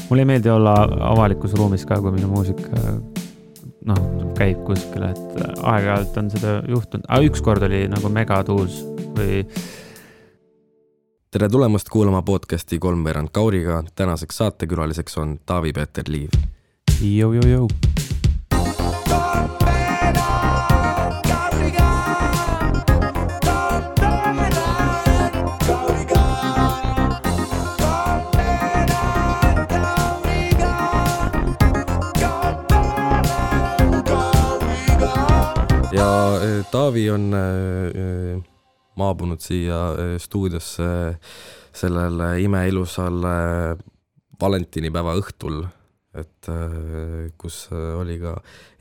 Mulle ei meeldi olla avalikus ruumis ka, kui minu muusika käib kuskile, et aeg-ajalt on seda juhtunud. Üks kord oli nagu megatuus või... Tere tulemast kuulama podcasti Kolmveerand Kauriga. Tänaseks saatekülaliseks on Taavi-Peeter Liiv. Jou. Ja Taavi on maabunud siia stuudiosse sellel imeilusal valentinipäeva õhtul, et kus oli ka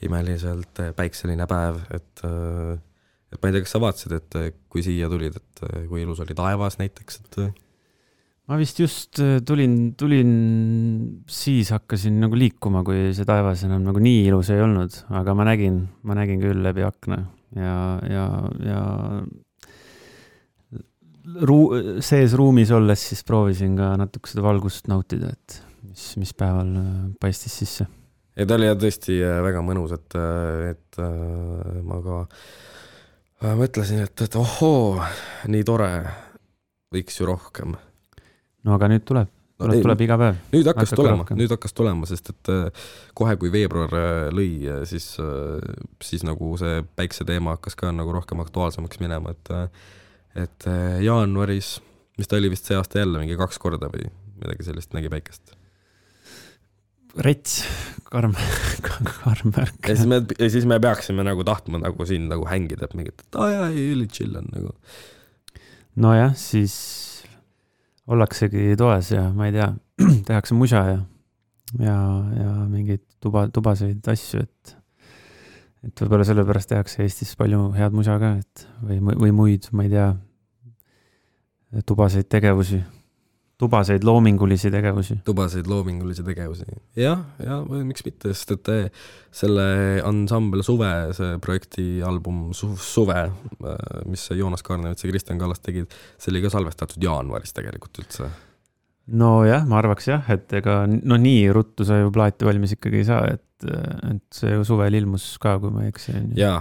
imeliselt päikseline päev, et ma ei tea, kas sa vaatasid, et kui siia tulid, et kui ilus oli taevas näiteks, et... Ma vist just tulin siis hakkasin nagu liikuma, kui see taevas enam nagu nii ilus ei olnud, aga ma nägin küll läbi akna ja sees ruumis olles siis proovisin ka natuke seda valgust nautida, et mis päeval paistis sisse. Ja ta oli tõesti väga mõnus, et ma ka mõtlesin, et ohoo, nii tore, võiks ju rohkem. No aga nüüd tuleb iga päev. Nüüd hakkas tulema, sest et kohe kui veebruar lõi, siis nagu see päikse teema hakkas ka nagu rohkem aktuaalsemaks minema, et jaanuaris, mis ta oli vist see aasta jälle mingi 2 korda või midagi sellist nägi päikest. Rets, karm märk. Ja siis me peaksime nagu tahtma nagu siin nagu hängida, et mingit, et üli chill on nagu. No jah, siis ollaksegi toes ja ma ei tea, tehakse musa ja mingeid tubaseid asju, et võib-olla sellepärast tehakse Eestis palju head musa ka, et või muid, ma ei tea, tubaseid loomingulisi tegevusi. Ja miks mitte, sest et selle ansambel Suve, see projektialbum Suve, mis Joonas Kaarnevits ja Kristjan Kallas tegid, see oli ka salvestatud jaanuaris tegelikult üldse. No jah, ma arvaks jah, et ega nii ruttu sa ju plaati valmis ikkagi ei saa, et see ju suvel ilmus ka, kui ma ei eksi. Ja,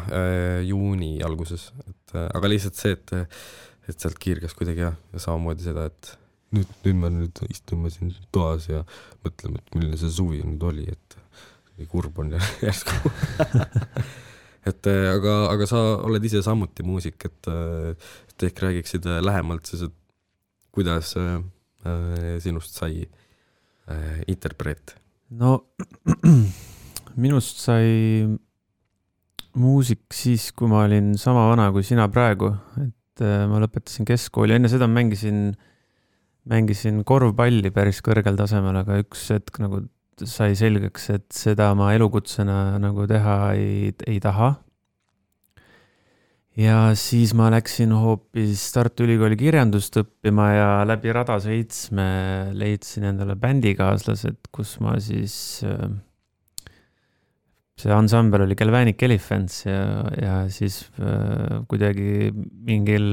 juuni alguses, aga lihtsalt see, et sealt kiirgas kuidagi ja samamoodi seda, et nüüd me istume siin toas ja mõtleme, et milline see suvi nüüd oli, et kurb on järsku. aga sa oled ise samuti muusik, et ehk räägiksid lähemalt siis, et kuidas sinust sai interpreet? No minust sai muusik siis, kui ma olin sama vana kui sina praegu, et ma lõpetasin keskkooli, enne seda mängisin korvpalli päris kõrgel tasemel, aga üks hetk nagu sai selgeks, et seda ma elukutsena nagu teha ei taha. Ja siis ma läksin hoopis Tartu Ülikooli kirjandust õppima ja läbi Rada 7 leidsin endale bändikaaslased, kus ma siis... See ansambel oli Galvanic Elephants ja siis kuidagi mingil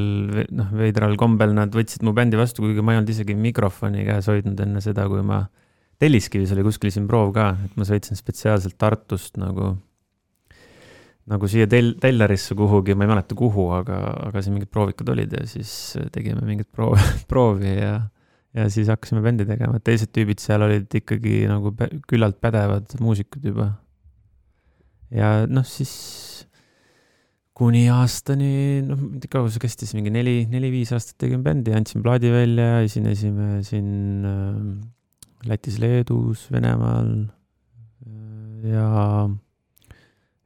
veidral kombel nad võtsid mu bändi vastu, kuigi ma ei olnud isegi mikrofoni käes hoidnud enne seda, kui ma Telliskivis oli kuskil siin proov ka, et ma sõitsin spetsiaalselt Tartust nagu siia Tellarisse kuhugi, ma ei mäleta kuhu, aga siin mingid proovikad olid ja siis tegime mingid proovi ja siis hakkasime bändi tegema. Teised tüübid seal olid ikkagi nagu küllalt pädevad muusikud juba. Ja siis kuni aastani, kaua see kestis, mingi 4-5 aastat tegime bändi, andsin plaadi välja, esinesime siin Lätis, Leedus, Venemaal ja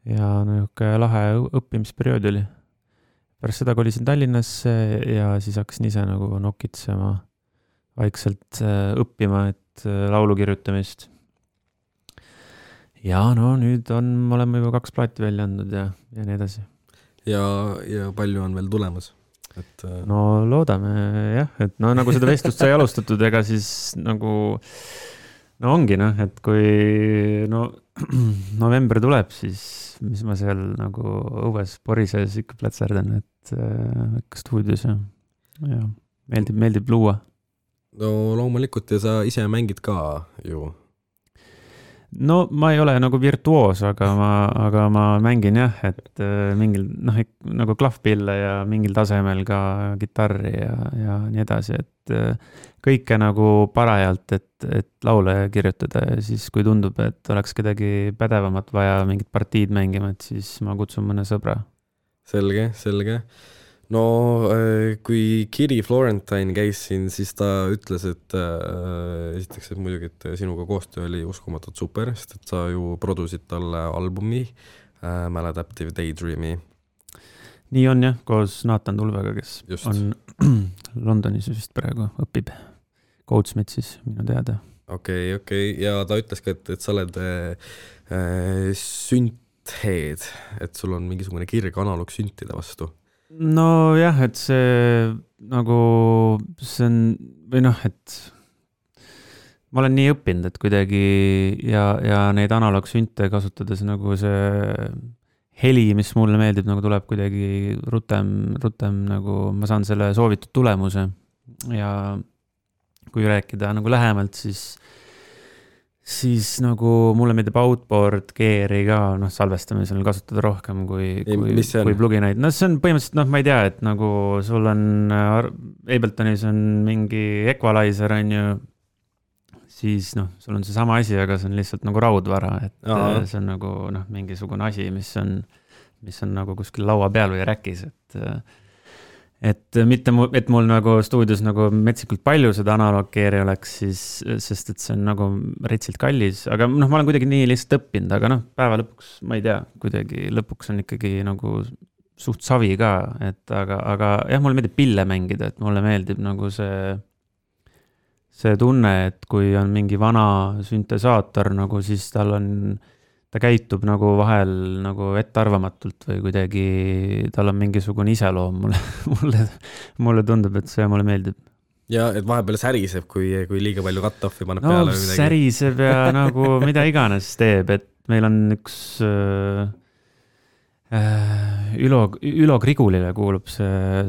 niisugune lahe õppimisperiood oli. Pärast seda kolisin Tallinnasse ja siis hakkasin ise nagu nokitsema vaikselt õppima, et laulu kirjutamist. Ja nüüd oleme juba 2 plaati välja andnud ja nii edasi. Ja palju on veel tulemas? No loodame jah, et nagu seda vestlust sai alustatud, ega siis nagu ongi et kui november tuleb, siis mis ma seal nagu õues porises ikka plätserdan, et ikka stuudios ja meeldib luua. No loomulikult ja sa ise mängid ka ju no ma ei ole nagu virtuoos, aga ma mängin jah, et mingil, noh, nagu klahvpille ja mingil tasemel ka kitarri ja nii edasi, et kõike nagu parajalt, et laule kirjutada ja siis, kui tundub, et oleks kedagi pädevamat vaja mingit partiid mängima, et siis ma kutsun mõne sõbra. Selge. No kui Kiri Florentine käis siin, siis ta ütles, et esiteks, et muidugi, et sinuga koostöö oli uskumatult super, sest et sa ju produsid talle albumi Maladaptive Daydreami. Nii on jah, koos Nathan Tulvega, kes Just. on Londonis vist praegu õpib Goldsmithsis minu teada. Okei. Ja ta ütles ka, et sa oled süntheed, et sul on mingisugune kirg analoog süntide vastu. No jah, et see nagu, see on, või noh, et ma olen nii õppinud, et kuidagi ja neid analoogsünte kasutades nagu see heli, mis mulle meeldib, nagu tuleb kuidagi rutem nagu ma saan selle soovitud tulemuse ja kui rääkida nagu lähemalt, siis nagu mulle meeldib outboard gear'i ka salvestamisel kasutada rohkem kui pluginaid. No see on põhimõtteliselt, ma ei tea, et nagu sul on Abletonis on mingi equalizer, on ju, siis sul on see sama asi, aga see on lihtsalt nagu raudvara, et see on nagu mingisugune asi, mis on nagu kuskil laua peal või räkis, et mitte et mul nagu stuudios nagu metsikult palju seda analooggeeri oleks, siis, sest et see on nagu retsilt kallis, aga ma olen kuidagi nii lihtsalt õppinud, aga päeva lõpuks, ma ei tea, kuidagi lõpuks on ikkagi nagu suht savi ka, et aga jah, mulle meeldib pille mängida, et mulle meeldib nagu see tunne, et kui on mingi vana süntesaator, nagu siis ta käitub nagu vahel nagu ettearvamatult või kuidagi tal on mingisugune iseloom mulle tundub, et see mulle meeldib. Ja et vahepeal säriseb, kui liiga palju cut-off'i paneb peale või midagi. Säriseb ja nagu mida iganes teeb, et meil on üks Ülo Grigulile kuulub see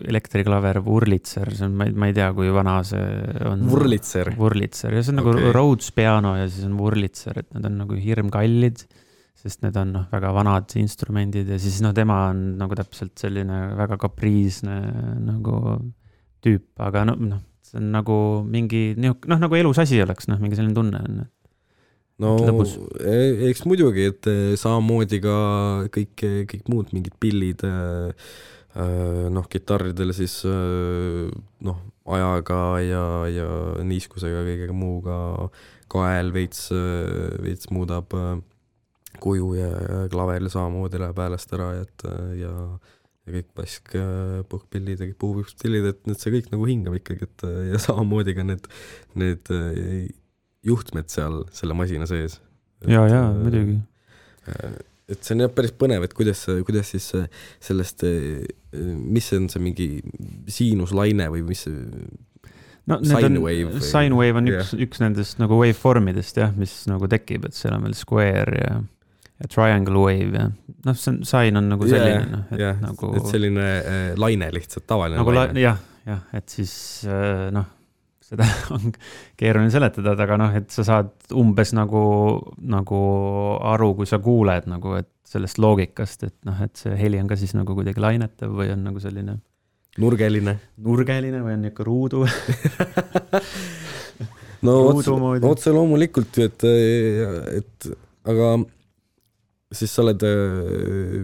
elektriklaver Wurlitzer, see on, ma ei tea, kui vana see on. Wurlitzer, ja see on nagu Rhodes piano ja siis on Wurlitzer, et need on nagu hirmkallid, sest need on väga vanad instrumendid ja siis tema on nagu täpselt selline väga kapriisne nagu tüüp, aga see on nagu mingi, nagu elus asi oleks, mingi selline tunne on. No eks muidugi, et samamoodi ka kõik muud mingid pillid kitarridel siis ajaga ja niiskusega kõigega muuga kael veits muudab kuju ja klaveril samamoodi läheb häälest ära ja kõik pask puhkpillid ja kõik puupillid, et need see kõik nagu hingab ikkagi, et ja samamoodi ka need juhtmed seal selle masina sees. Ja, muidugi. Et see on päris põnev, et kuidas siis sellest, mis on see mingi siinuslaine või mis sine wave? Sine wave on üks nendest nagu waveformidest, mis nagu tekib, et seal on veel square ja triangle wave ja sine on nagu selline. Et selline laine lihtsalt, tavaline nagu laine. Jah, et siis seda on keeruline seletada, aga et sa saad umbes nagu aru, kui sa kuuled nagu, et sellest loogikast, et see heli on ka siis nagu kuidagi lainetav või on nagu selline nurgeline või on ikka ruudu. No otse loomulikult, et aga siis sa oled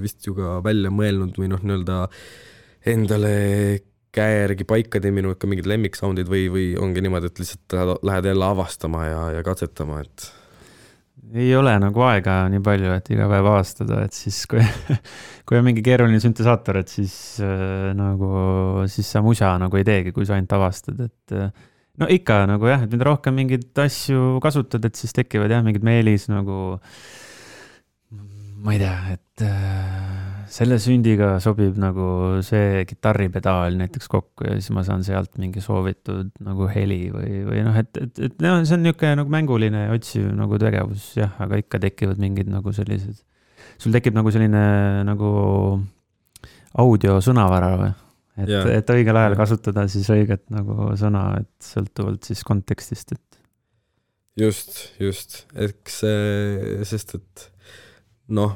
vist ju ka välja mõelnud või nii-öelda endale käe järgi paika teeminud ka mingid lemmiksoundid või ongi niimoodi, et lihtsalt lähed jälle avastama ja katsetama, et ei ole nagu aega nii palju, et iga päev avastada, et siis kui on mingi keeruline süntesaator, et siis sa musa nagu ei teegi, kui sa ainult avastad, et ikka nagu jah, et mida rohkem mingeid asju kasutad, et siis tekivad mingid meelis nagu ma ei tea, et selle sündiga sobib nagu see kitarripedaal näiteks kokku ja siis ma saan sealt mingi soovitud nagu heli või et see on niisugune nagu mänguline otsiv nagu tegevus, jah, aga ikka tekivad mingid nagu sellised, sul tekib nagu selline nagu audiosõnavara või? Et õigel ajal kasutada siis õiget nagu sõna, et sõltuvalt siis kontekstist, et just, eks sest, et noh,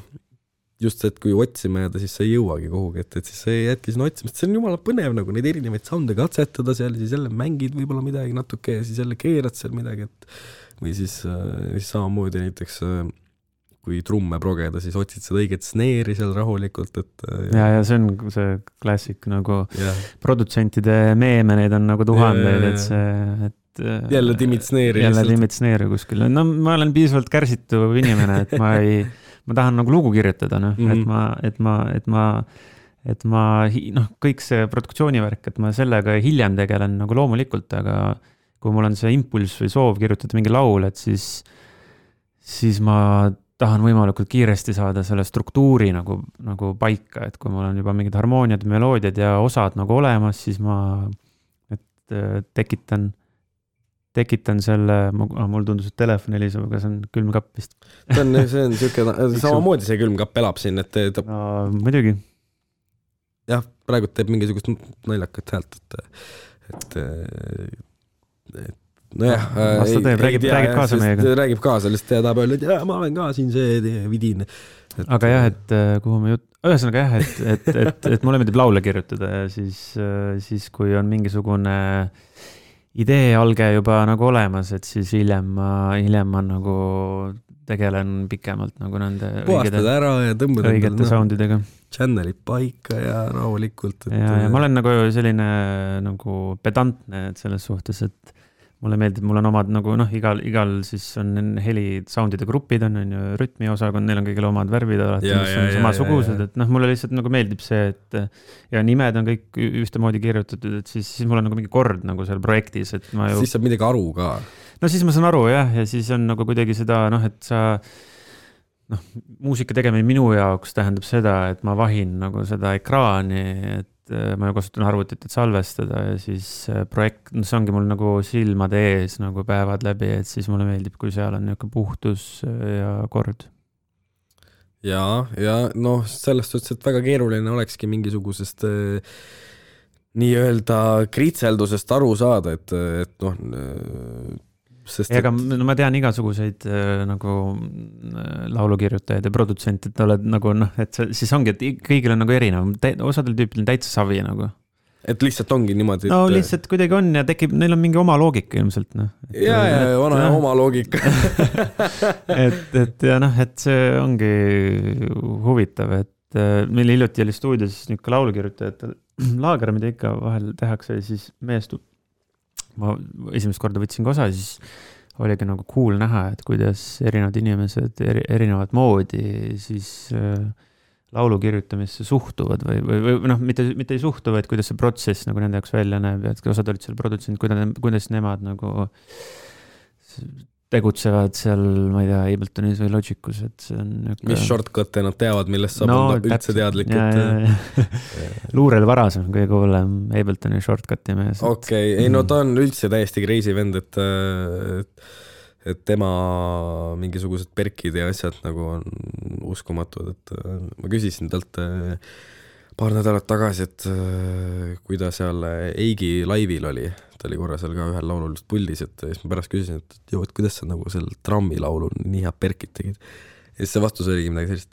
just see, et kui otsima jääda, siis sa ei jõuagi kuhugi, et siis sa jätki sinna otsimist, see on jumala põnev nagu neid erinevaid sounde katsetada seal, siis jälle mängid võib-olla midagi natuke ja siis jälle keerad seal midagi, et või siis samamoodi näiteks kui trumme progeda, siis otsid seda õiget sneeri seal rahulikult, et ja see on see klassik nagu produtsentide meeme, neid on nagu tuhandeid, et see, et jälle timid sneeri. Jälle timid sneeri kuskil. No ma olen piisavalt kärsitu inimene, et ma tahan nagu lugu kirjutada, noh, et ma kõik see produktsioonivärk, et ma sellega hiljem tegelen nagu loomulikult, aga kui mul on see impulss või soov kirjutada mingi laul, et siis ma tahan võimalikult kiiresti saada selle struktuuri nagu paika, et kui mul on juba mingid harmooniad, meloodiad ja osad nagu olemas, siis ma tekitan selle, mul tundus, et telefon heliseb, aga see on külmkapp vist. See on samamoodi see külmkapp elab siin, et no, muidugi. Jah, praegu teeb mingisugust naljakat häält, et nojah, räägib kaasa meiega. Räägib kaasa, lihtsalt ta tahab öelda, et ma olen ka siin see vidin. Aga jah, et kuhu me ühesõnaga jah, et mulle meeldib laule kirjutada ja siis kui on mingisugune idee alge juba nagu olemas, et siis hiljem ma nagu tegelen pikemalt nagu nende puhastad ära ja tõmbad õigete soundidega. Channelid paika ja rahulikult. Ja ma olen nagu selline nagu pedantne selles suhtes, et mulle meeldib, mul on omad nagu igal siis on heli soundide grupid on ju rütmiosakond, neil on kõigil omad värvid alati, mis on samasugused, et mulle lihtsalt nagu meeldib see, et ja nimed on kõik ühtemoodi kirjutatud, et siis mul on nagu mingi kord nagu seal projektis, et ma ju... Siis saab midagi aru ka. No siis ma saan aru jah, ja siis on nagu kuidagi seda, et sa muusika tegemine minu jaoks tähendab seda, et ma vahin nagu seda ekraani, et ma ju kasutan arvutit, et salvestada ja siis projekt, see ongi mul nagu silmade ees nagu päevad läbi, et siis mulle meeldib, kui seal on niisugune puhtus ja kord. Ja sellest suhtes, et väga keeruline olekski mingisugusest nii-öelda kritseldusest aru saada, et ega ma tean igasuguseid nagu laulukirjutajaid ja produtsent, et oled nagu et siis ongi, et kõigil on nagu erinev, osadel tüüpil on täitsa savi nagu. Et lihtsalt ongi niimoodi, no lihtsalt kuidagi on ja tekib, neil on mingi oma loogika ilmselt. Oma loogika. et see ongi huvitav, et meil hiljuti oli stuudios niisugune laulukirjutajate laager, mida ikka vahel tehakse ja siis meestub. Ma esimest korda võtsin ka osa, siis oligi nagu cool näha, et kuidas erinevad inimesed erinevad moodi siis laulu kirjutamisse suhtuvad või mitte ei suhtu, vaid kuidas see protsess nagu nende jaoks välja näeb ja et osad olid seal produtsent, kuidas nemad nagu tegutsevad seal, ma ei tea, Abletonis või Logicus, et see on mis shortcut'e nad teavad, millest saab olla üldse teadlik, Luurel Varas on kõige hullem Abletoni shortcut'i mees. Okei, ta on üldse täiesti crazy vend, et tema mingisugused perkid ja asjad nagu on uskumatud, et ma küsisin talt paar nädalat tagasi, et kui ta seal Eigi laivil oli, ta oli korra seal ka ühel laulul just puldis, et siis ma pärast küsisin, et kuidas sa nagu seal trammi laulul nii head perkid tegid. Ja siis see vastus oligi midagi sellist,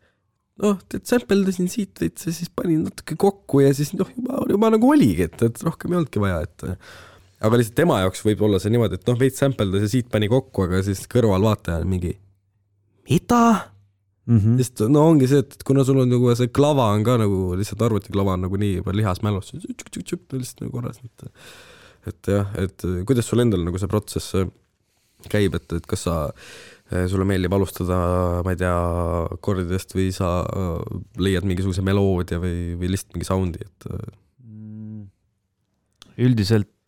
sampeldasin siit veits ja siis panin natuke kokku ja siis juba nagu oligi, et rohkem ei olnudki vaja, et aga lihtsalt tema jaoks võib olla see niimoodi, et veits sampeldas ja siit pani kokku, aga siis kõrval vaataja on mingi mida? Sest ongi see, et kuna sul on nagu see klava on ka nagu lihtsalt arvutiklava on nagu nii juba lihasmälus, lihtsalt nagu korras, et jah, et kuidas sul endal nagu see protsess käib, et kas sulle meeldib alustada, ma ei tea, kordidest või sa leiad mingisuguse meloodia või lihtsalt mingi soundi, et üldiselt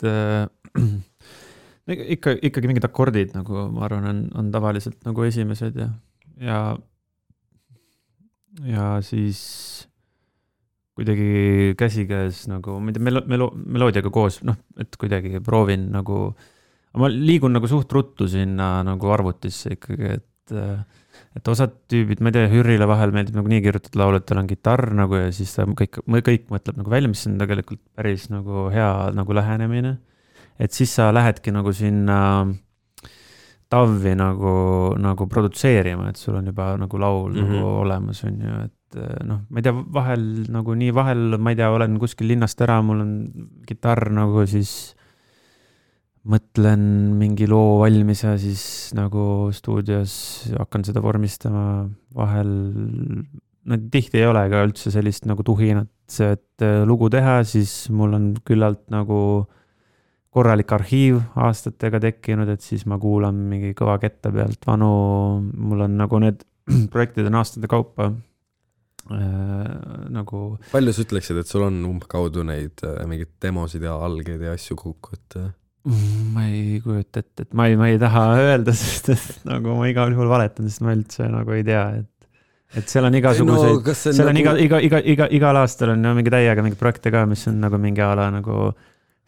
ikkagi mingid akordid nagu ma arvan on tavaliselt nagu esimesed ja siis kuidagi käsikäes nagu meloodiaga koos, et kuidagi proovin nagu, ma liigun nagu suht ruttu sinna nagu arvutisse ikkagi, et osad tüübid, ma ei tea, Hürrile vahel meeldib nagu nii kirjutatud laulu, et tal on kitarr nagu ja siis ta kõik mõtleb nagu välja, mis on tegelikult päris nagu hea nagu lähenemine, et siis sa lähedki nagu sinna TAV-i nagu produtseerima, et sul on juba nagu laul nagu olemas on ju, et noh, ma ei tea, vahel nagu nii vahel, ma ei tea, olen kuskil linnast ära, mul on kitarr nagu siis mõtlen mingi loo valmis ja siis nagu stuudios hakkan seda vormistama vahel, no tihti ei ole ka üldse sellist nagu tuhinat, et lugu teha, siis mul on küllalt nagu korralik arhiiv aastatega tekkinud, et siis ma kuulan mingi kõva ketta pealt vanu, mul on nagu need projektid on aastate kaupa nagu... Palju sa ütleksid, et sul on umbkaudu neid mingid demosid ja algeid ja asju kokku, et... Ma ei kujuta ette, et ma ei taha öelda, sest et nagu ma igal juhul valetan, sest ma üldse nagu ei tea, et seal on igasuguseid, no, seal on nagu... igal aastal on mingi täiega mingi projekte ka, mis on nagu mingi ala nagu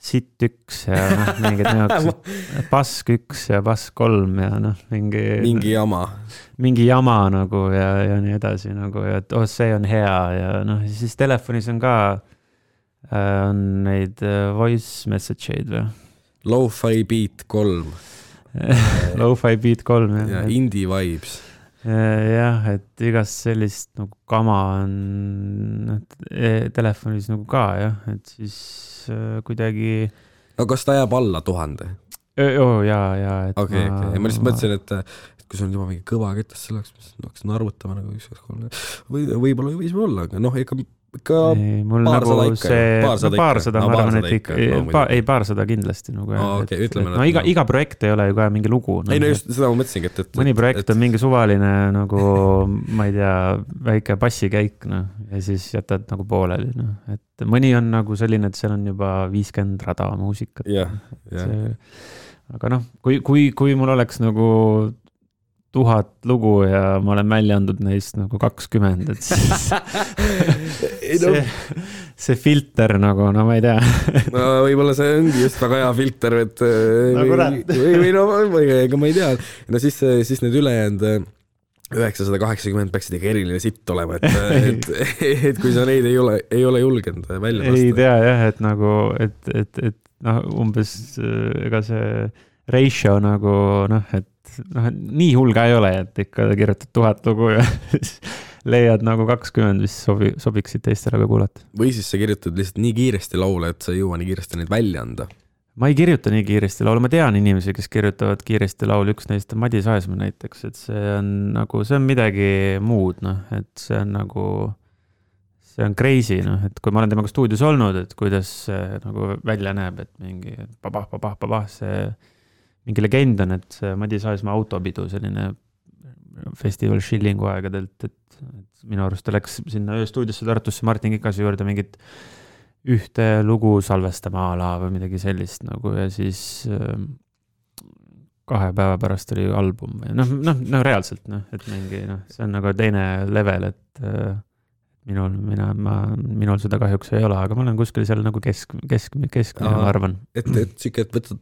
sitt 1 ja noh, mingid neoksed, pask 1 ja pask 3 ja noh, mingi jama nagu ja nii edasi nagu, ja et see on hea ja noh, siis telefonis on ka on neid voice message'id või? Lo-fi beat 3. Lo-fi beat 3, jah. Ja indie vibes. Jah, et igast sellist nagu kama on telefonis nagu ka, jah, et siis kuidagi... No kas ta jääb alla 1000? Jaa, et okay. Ma lihtsalt mõtlesin, et kui sul on juba mingi kõva ketas selleks, mis hakkasin arvutama nagu 1-2-3, võib-olla võis olla, aga noh, ikka paarsada, ma arvan, et ikka, paarsada kindlasti nagu, no iga projekt ei ole ju ka mingi lugu. Ei, no just seda ma mõtlesingi, et mõni projekt on mingi suvaline nagu, ma ei tea, väike bassikäik, noh, ja siis jätad nagu pooleli, noh, et mõni on nagu selline, et seal on juba 50 rada muusikat. Aga noh, kui mul oleks nagu 1000 lugu ja ma olen välja andnud neist nagu 20, et siis see filter nagu, no ma ei tea. No võib-olla see ongi just väga hea filter, et või ega ma ei tea. No siis need ülejäänud 980 peaksid ikka eriline sitt olema, et kui sa neid ei ole julgenud välja lasta. Ei tea jah, et nagu, et noh, umbes ega see ratio nagu, noh, et noh, nii hull ka ei ole, et ikka kirjutad 1000 lugu ja leiad nagu 20, mis sobiksid teistele ka kuulata. Või siis sa kirjutad lihtsalt nii kiiresti laule, et sa ei jõua nii kiiresti neid välja anda. Ma ei kirjuta nii kiiresti laulu, ma tean inimesi, kes kirjutavad kiiresti laulu, üks neist on Madis Aesmaa näiteks, et see on midagi muud, noh, et see on nagu, see on crazy, noh, et kui ma olen temaga stuudios olnud, et kuidas see nagu välja näeb, et mingi papah, see mingi legend on, et see Madis Aesmaa autopidu, selline festival Schillingu aegadelt, et minu arust ta läks sinna ööstuudiosse Tartusse Martin Kikase juurde mingit ühte lugu salvestama ala või midagi sellist nagu ja siis 2 päeva pärast oli album või noh, reaalselt, noh, et mingi, noh, see on nagu teine level, et minul seda kahjuks ei ole, aga ma olen kuskil seal nagu keskmine, ma arvan. Et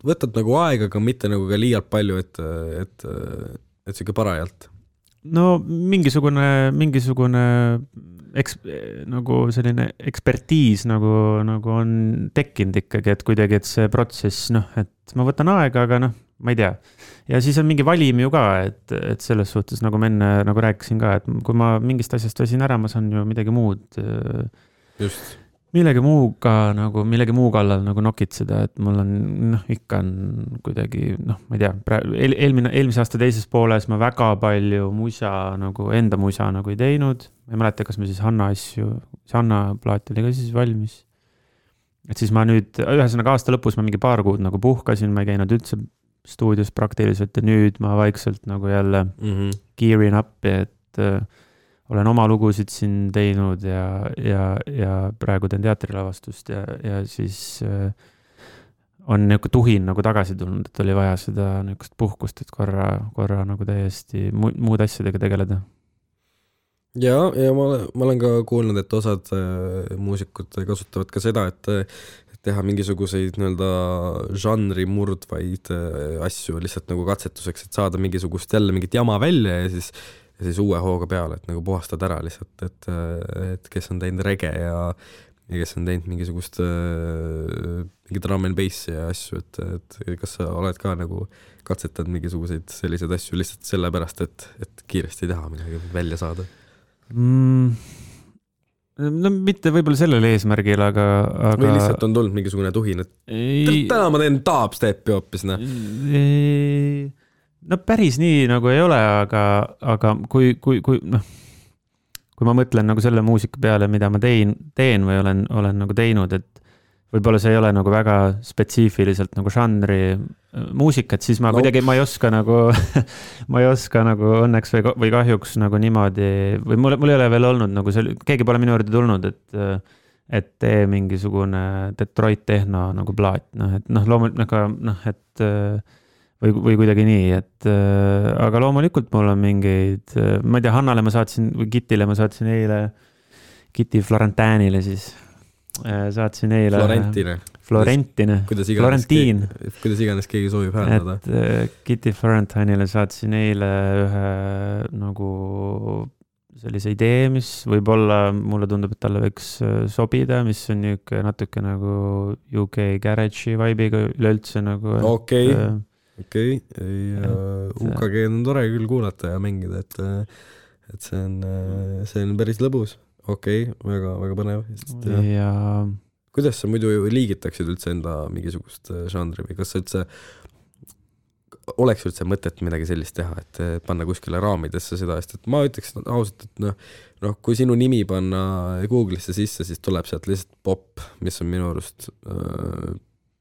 võtad nagu aega, aga mitte nagu ka liialt palju, et siuke parajalt. No mingisugune nagu selline ekspertiis nagu on tekkinud ikkagi, et kuidagi, et see protsess, noh, et ma võtan aega, aga noh, ma ei tea. Ja siis on mingi valim ju ka, et selles suhtes, nagu ma enne nagu rääkisin ka, et kui ma mingist asjast väsin ära, ma saan ju midagi muud. Just. Millegi muu kallal nagu nokitseda, et mul on, noh, ikka on kuidagi, noh, ma ei tea, eelmise aasta teises pooles ma väga palju enda musa nagu ei teinud. Ma ei mäleta, kas me siis Hanna plaat oli ka siis valmis. Et siis ma nüüd, ühesõnaga aasta lõpus ma mingi paar kuud nagu puhkasin, ma ei käinud üldse stuudios praktiliselt ja nüüd ma vaikselt nagu jälle gearing up, et olen oma lugusid siin teinud ja praegu teen teatrilavastust ja siis on niisugune tuhin nagu tagasi tulnud, et oli vaja seda niisugust puhkust, et korra nagu täiesti muud asjadega tegeleda. Ja ma olen ka kuulnud, et osad muusikud kasutavad ka seda, et teha mingisuguseid žanri murdvaid asju lihtsalt nagu katsetuseks, et saada mingisugust jälle mingit jama välja ja siis uue hooga peale, et nagu puhastad ära lihtsalt, et kes on teinud rege kes on teinud mingisugust mingi drum and bassi ja asju, et kas sa oled ka nagu katsetanud mingisuguseid selliseid asju lihtsalt sellepärast, et kiiresti teha midagi välja saada? No mitte võib-olla sellel eesmärgil, aga... Või lihtsalt on tulnud mingisugune tuhin, et täna ma teen dubstepi hoopis, noh. No päris nii nagu ei ole, aga kui ma mõtlen nagu selle muusika peale, mida ma teen või olen nagu teinud, et võib-olla see ei ole nagu väga spetsiifiliselt nagu žanri muusikat, siis ma kuidagi, ma ei oska nagu õnneks või kahjuks nagu niimoodi, või mul ei ole veel olnud nagu keegi pole minu juurde tulnud, et tee mingisugune Detroit tehno nagu plaat, loomulikult, või kuidagi nii, aga loomulikult mul on mingeid, ma ei tea, Hannale ma saatsin, või Kitile ma saatsin eile, Kiti Florentinile siis, saatsin eile Florentine, Florentiin. Kuidas iganes keegi soovib hääldada. Et Kitty Florentinile saatsin eile ühe nagu sellise idee, mis võib-olla mulle tundub, et talle võiks sobida, mis on natuke nagu UK Garage'i vibe'iga üleüldse nagu. Okei. UKG on tore küll kuulata ja mängida, et see on päris lõbus. Okei, väga põnev. Ja kuidas sa muidu liigitaksid üldse enda mingisugust žanri või kas sa üldse oleks üldse mõtet midagi sellist teha, et panna kuskile raamidesse seda, et ma ütleks ausalt, et kui sinu nimi panna Google'isse sisse, siis tuleb sealt lihtsalt pop, mis on minu arust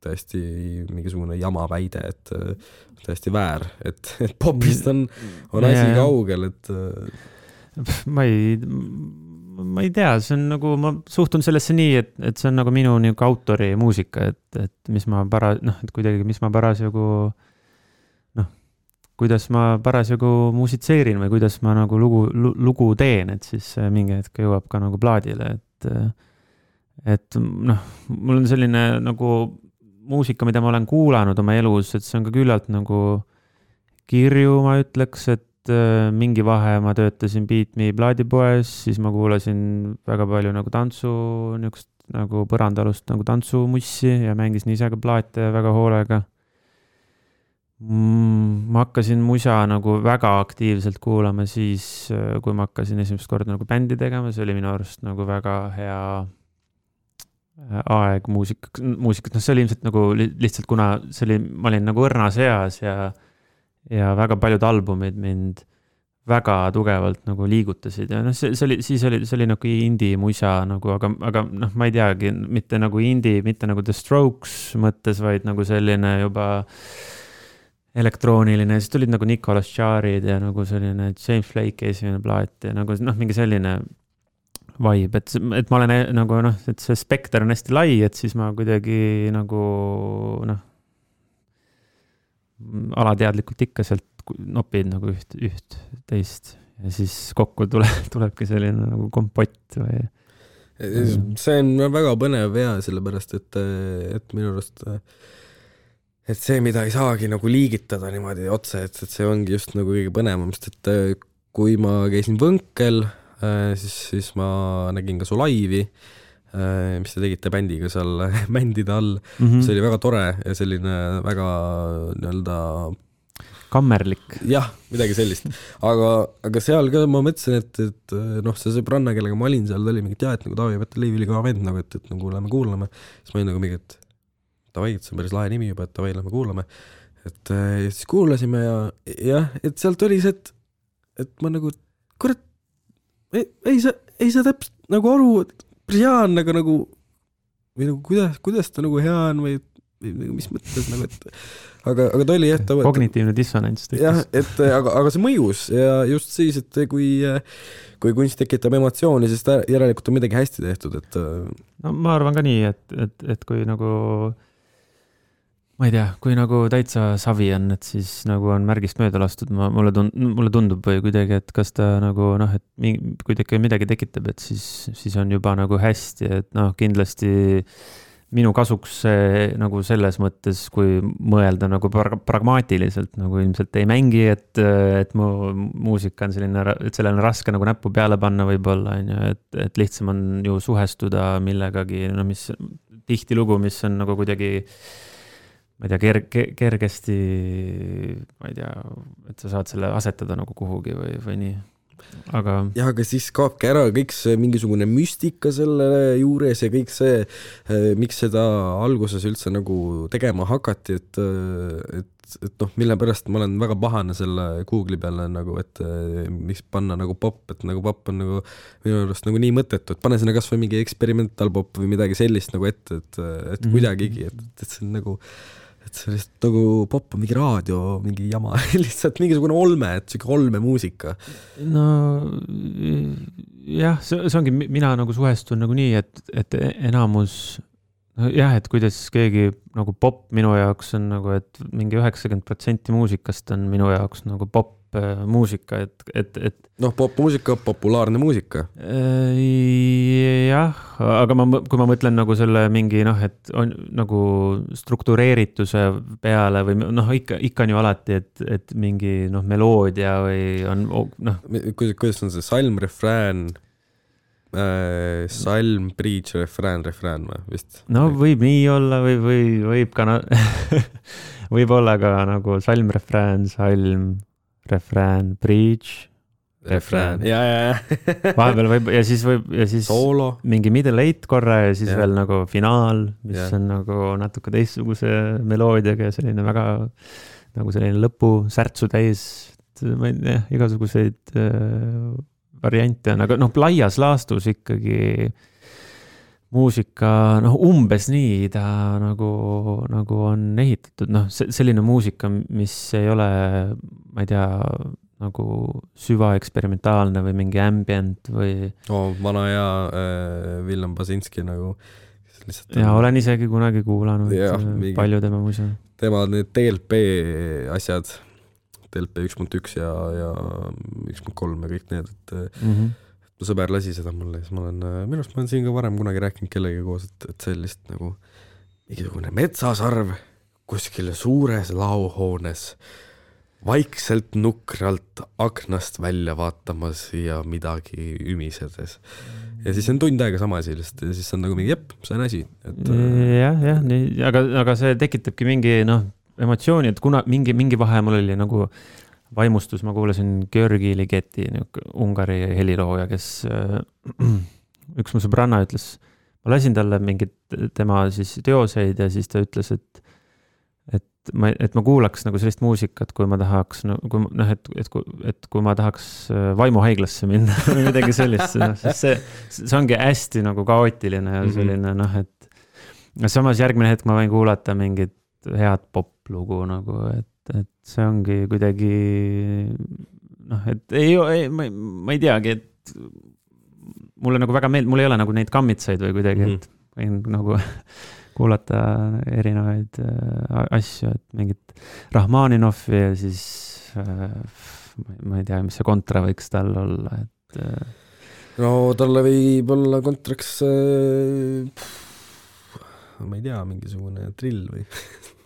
täiesti mingisugune jama väide, et täiesti väär, et popist on asi kaugel, et ma ei tea, see on nagu, ma suhtun sellesse nii, et see on nagu minu nagu autori muusika, et mis ma parasjagu kuidas ma parasjagu muusitseerin või kuidas ma nagu lugu teen, et siis mingi hetk jõuab ka nagu plaadile, et mul on selline nagu muusika, mida ma olen kuulanud oma elus, et see on ka küllalt nagu kirju, ma ütleks, et mingi vahe ma töötasin Beat Me plaadipoes, siis ma kuulasin väga palju nagu tantsu, niisugust nagu põrandalust nagu tantsumussi ja mängisin ise ka plaate väga hoolega. Ma hakkasin musa nagu väga aktiivselt kuulama siis, kui ma hakkasin esimest korda nagu bändi tegema, see oli minu arust nagu väga hea aeg muusikat, see oli ilmselt nagu lihtsalt, kuna ma olin nagu õrnas eas ja väga paljud albumid mind väga tugevalt nagu liigutasid ja see oli nagu indie musa nagu, aga ma ei teagi, mitte nagu indie, mitte nagu The Strokes mõttes, vaid nagu selline juba elektrooniline, siis tulid nagu Nicholas Jarre'id ja nagu selline James Blake esimene plaat ja nagu mingi selline vibe, et ma olen nagu et see spekter on hästi lai, et siis ma kuidagi nagu alateadlikult ikka sealt nopid nagu üht teist ja siis kokku tulebki selline nagu kompott või... See on väga põnev ja sellepärast, et minu arust et see, mida ei saagi nagu liigitada niimoodi otse, et see ongi just nagu kõige põnevam, sest et kui ma käisin Võnkel, siis ma nägin ka su laivi, mis te tegite bändiga seal mändide all. See oli väga tore ja selline väga nii-öelda kammerlik. Jah, midagi sellist. Aga seal ka ma mõtlesin, et see sõbranna, kellega ma olin seal, ta oli mingi et nagu Taavi Päteliiv oli ka vend, nagu, et nagu lähme kuulame. Siis ma olin nagu mingi, et Tavai, et see on päris lahe nimi juba, et Tavai, lähme kuulame. Et siis kuulasime ja et sealt oli see, et ma nagu, kurat, ei saa täpselt nagu aru, et Brian nagu või nagu kuidas ta nagu hea on või mis mõttes nagu, et aga ta oli jah, kognitiivne dissonants jah, et aga see mõjus ja just siis, et kui kunst tekitab emotsiooni, siis järelikult on midagi hästi tehtud, et ma arvan ka nii, et kui nagu ma ei tea, kui nagu täitsa savi on, et siis nagu on märgist mööda lastud, mulle tundub või kuidagi, et kas ta nagu et kui midagi tekitab, et siis on juba nagu hästi, et kindlasti minu kasuks see nagu selles mõttes, kui mõelda nagu pragmaatiliselt, nagu ilmselt ei mängi, et mu muusika on selline, et sellele on raske nagu näppu peale panna võib-olla, on ju, et lihtsam on ju suhestuda millegagi, no mis tihtilugu, mis on nagu kuidagi, ma ei tea, kergesti, ma ei tea, et sa saad selle asetada nagu kuhugi või nii. Aga siis kaobki ära kõik see mingisugune müstika selle juures ja kõik see, miks seda alguses üldse nagu tegema hakati, et noh, mille pärast ma olen väga pahane selle Google'i peale nagu, et miks panna nagu pop, et nagu pop on nagu minu arust nagu nii mõttetu, et pane sinna kas või mingi experimental pop või midagi sellist nagu ette, et kuidagigi, et see on nagu et see lihtsalt nagu pop on mingi raadio, mingi jama, lihtsalt mingisugune olme, et siuke olmemuusika. No jah, see ongi, mina nagu suhestun nagu nii, et enamus, jah, et kuidas keegi nagu pop minu jaoks on nagu, et mingi 90% muusikast on minu jaoks nagu pop muusika, et noh, popmuusika, populaarne muusika. Jah, aga kui ma mõtlen nagu selle mingi, noh, et on nagu struktureerituse peale või noh, ikka on ju alati, et mingi noh, meloodia või on noh. Kuidas on see salm, refrään, salm, bridge, refrään või vist? No võib nii olla või võib ka võib olla ka nagu salm, refrään, refrään, bridge, refrään. Ja. Vahepeal võib, ja siis Solo. Mingi middle eight korra ja siis veel nagu finaal, mis on nagu natuke teistsuguse meloodiaga ja selline väga nagu selline lõpu särtsu täis, ma ei tea, igasuguseid variante on, aga noh, laias laastus ikkagi muusika, noh, umbes nii ta nagu on ehitatud, noh, selline muusika, mis ei ole, ma ei tea, nagu süvaeksperimentaalne või mingi ambient või... vana ja Willem Basinski nagu... Ja olen isegi kunagi kuulanud palju tema muisa. Tema need DLP asjad, DLP 1.1 ja 1.3 ja kõik need, et... sõber lasi seda mulle ja siis ma olen siin ka varem kunagi rääkinud kellegi koos, et see lihtsalt nagu mingisugune metsasarv kuskil suures laohoones vaikselt nukralt aknast välja vaatamas ja midagi ümisedes. Ja siis on tund aega sama asi lihtsalt ja siis on nagu mingi see on asi. Jah, nii, aga see tekitabki mingi emotsiooni, et kuna mingi vahe mul oli nagu vaimustus, ma kuulasin Georgi Ligeti, Ungari helilooja, kes üks mu sõbranna ütles, ma lasin talle mingid tema siis teoseid ja siis ta ütles, et ma kuulaks nagu sellist muusikat, kui ma tahaks, kui ma tahaks vaimuhaiglasse minna või midagi sellist, see ongi hästi nagu kaootiline ja selline, et samas järgmine hetk ma võin kuulata mingit head poplugu nagu, et see ongi kuidagi et ma ei teagi, et mulle nagu väga mul ei ole nagu neid kammitsaid või kuidagi, et võin nagu kuulata erinevaid asju, et mingit Rahmaninovi ja siis ma ei tea, mis see kontra võiks tal olla, et no talle võib olla kontraks ma ei tea, mingisugune drill või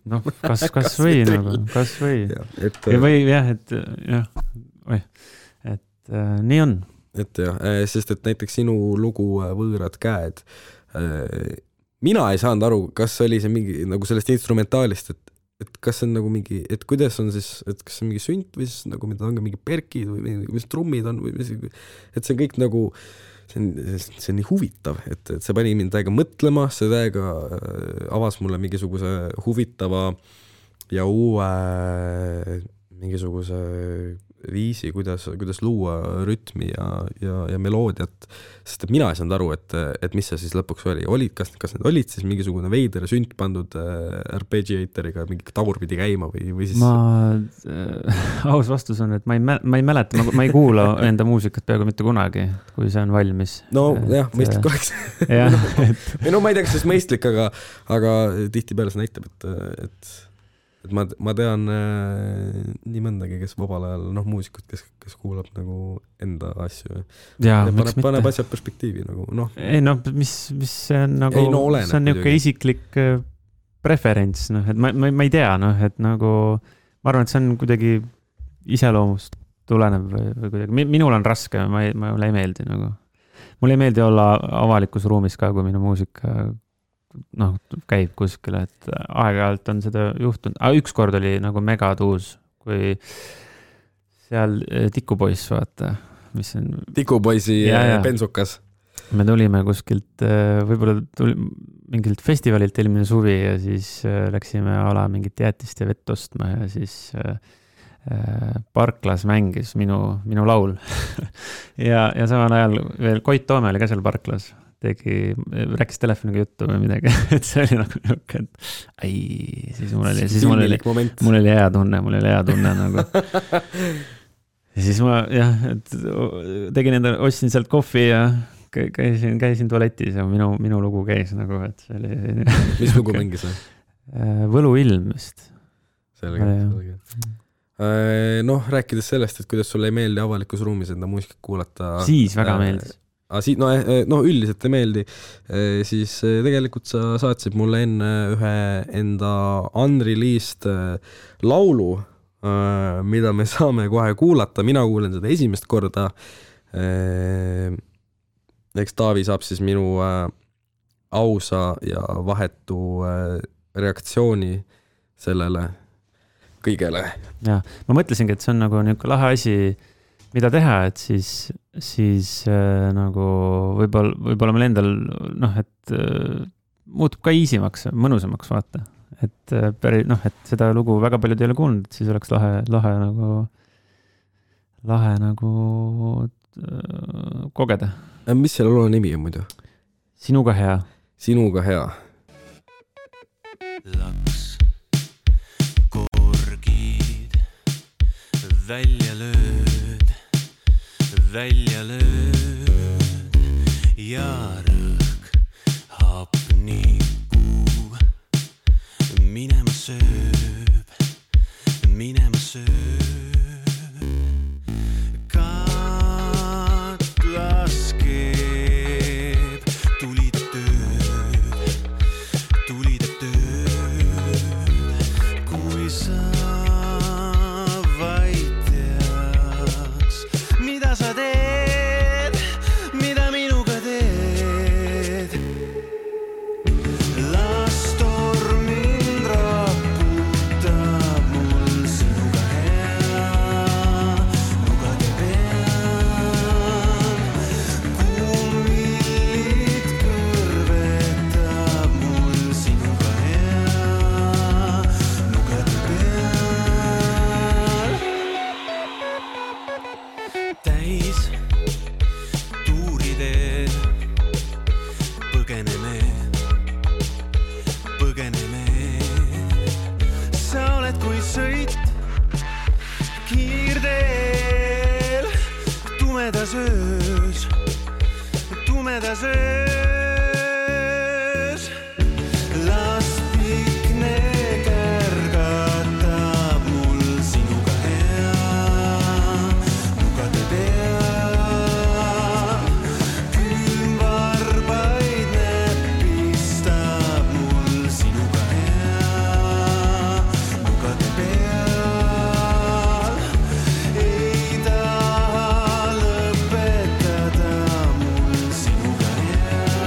noh, kas või nagu, kas või. Või jah, et nii on. Et jah, sest et näiteks sinu lugu Võõrad käed, mina ei saanud aru, kas oli see mingi nagu sellest instrumentaalist, et kas see on nagu mingi, et kuidas on siis, et kas see on mingi sünt või siis nagu mida on ka mingi perkid või mis trummid on või et see kõik nagu see on nii huvitav, et see pani mind täiega mõtlema, see täiega avas mulle mingisuguse huvitava ja uue mingisuguse viisi, kuidas luua rütmi ja meloodiat, sest et mina ei saanud aru, et mis see siis lõpuks oli. Kas need olid siis mingisugune veider sünt pandud arpeggiatoriga mingi tagurpidi käima või siis... Aus vastus on, et ma ei mäleta, ma ei kuula enda muusikat peaaegu mitte kunagi, kui see on valmis. No jah, mõistlik oleks. No ma ei tea, kas see mõistlik, aga tihtipeale see näitab, et ma tean nii mõndagi, kes vabal ajal, muusikud, kes kuulab nagu enda asju ja paneb asjad perspektiivi nagu, Ei mis see on nagu, see on niuke isiklik preferents, et ma ei tea, et nagu, ma arvan, et see on kuidagi iseloomust tulenev või kuidagi, minul on raske, mulle ei meeldi nagu. Mulle ei meeldi olla avalikus ruumis ka, kui minu muusika käib kuskile, et aeg-ajalt on seda juhtunud. Üks kord oli nagu megatuus, kui seal Tikupoiss, vaata, mis on... Tikupoisi bensukas. Me tulime kuskilt, võib-olla mingilt festivalilt eelmine suvi ja siis läksime ala mingit jäätist ja vett ostma ja siis Parklas mängis minu laul. ja samal ajal veel Koit Toome oli ka seal Parklas. Rääkis telefoniga juttu või midagi, et see oli nagu niuke, et siis mul oli hea tunne nagu. Ja siis ma tegin ostsin sealt kohvi ja käisin tualetis ja minu lugu käis nagu, et see oli... Mis lugu mängis? Võluilm vist. Selge. Rääkides sellest, et kuidas sulle ei meeldi avalikus ruumis enda muusikat kuulata... Siis väga meeldis. Üldiselt ei meeldi, siis tegelikult sa saatsid mulle enne ühe enda unreleased laulu, mida me saame kohe kuulata, mina kuulen seda esimest korda. Eks Taavi saab siis minu ausa ja vahetu reaktsiooni sellele kõigele. Ja, ma mõtlesingi, et see on nagu niuke lahe asi, mida teha, et siis nagu võib-olla meil endal, et muutub ka easimaks, mõnusamaks vaata. Et et seda lugu väga paljud ei ole kuulnud, et siis oleks lahe nagu kogeda. Mis selle loo nimi on muidu? Sinuga hea. Sinuga hea. Laks, korgid, välja lööd ja rõhk hapniku minema sööb katlas keeb tulide tööd kui sa vaid teaks mida sa teed, mida minuga teed. Las torm mind raputab mul sinuga hea, lugade peal. Kummillid kõrvetab mul sinuga hea, lugade peal. Täis tuuridel põgeneme. Sa oled kui sõit kiirdeel tumedas öös. Las pikne kärgatab mul sinuga hea, lugade peal. Külmvarbaid näpistab mul sinuga hea, lugade peal. Ei taha lõpetada mul sinuga hea,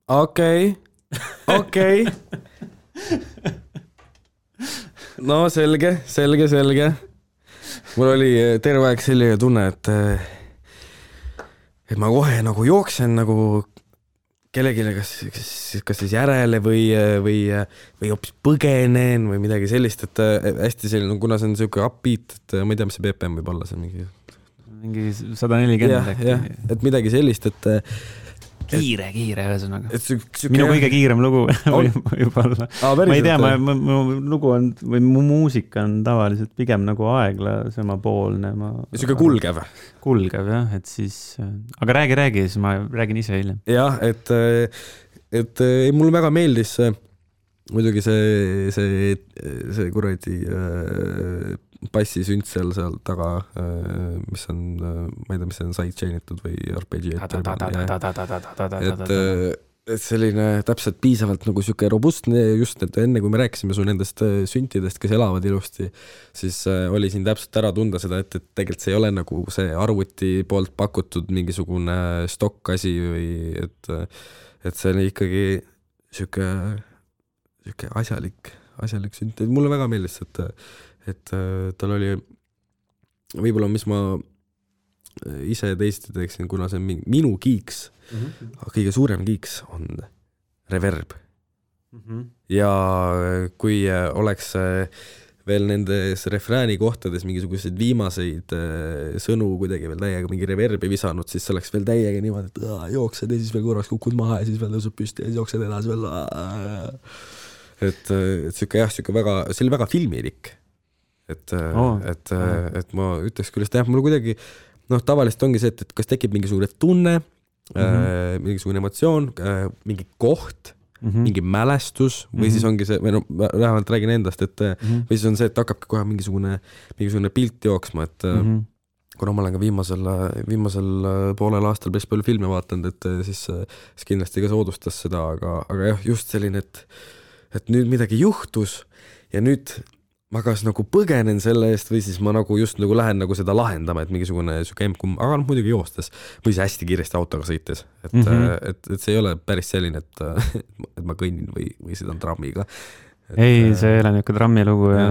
okei. No selge. Mul oli terve aeg selline tunne, et ma kohe nagu jooksen nagu kellegile kas siis järele või hoopis põgenen või midagi sellist, et hästi selline, kuna see on niisugune upbeat, et ma ei tea, mis see BPM võib olla, see on mingi 140 äkki. Et midagi sellist, et kiire ühesõnaga. Minu kõige kiirem lugu võib olla. Ma ei tea, mu lugu on, või mu muusika on tavaliselt pigem nagu aeglasemapoolne. Niisugune kulgev, jah, et siis, aga räägi, siis ma räägin ise hiljem. Jah, et mulle väga meeldis muidugi see kuradi bassisünt seal taga, mis on, ma ei tea, mis see on sidechainitud või arpeggiator. Et selline täpselt piisavalt nagu siuke robustne, just et enne kui me rääkisime su nendest süntidest, kes elavad ilusti, siis oli siin täpselt ära tunda seda, et tegelikult see ei ole nagu see arvuti poolt pakutud mingisugune stokk asi või et see on ikkagi siuke asjalik sünt. Mulle väga meeldis, et tal oli võib-olla, mis ma ise teiste teeksin, kuna see on minu kiiks, kõige suurem kiiks on reverb. Ja kui oleks veel nendes refrääni kohtades mingisuguseid viimaseid sõnu kuidagi veel täiega mingi reverbi visanud, siis see oleks veel täiega niimoodi, et jooksed ja siis veel korraks kukud maha ja siis veel tõusub püsti ja siis jooksed edasi veel. Et siuke väga, see oli väga filmilik. Et ma ütleks küll, et mul kuidagi, tavaliselt ongi see, et kas tekib mingisugune tunne, mingisugune emotsioon, mingi koht, mingi mälestus või siis ongi see, või vähemalt räägin endast, et või siis on see, et hakkabki kohe mingisugune pilt jooksma, et kuna ma olen ka viimasel poolel aastal päris palju filme vaatanud, et siis kindlasti ka soodustas seda, aga jah, just selline, et nüüd midagi juhtus ja nüüd ma kas nagu põgenen selle eest või siis ma nagu just nagu lähen nagu seda lahendama, et mingisugune M-kum, aga muidugi joostes või see hästi kiiresti autoga sõites, et see ei ole päris selline, et ma kõnnin või sõidan trammiga. Ei, see ei ole niisugune trammilugu ja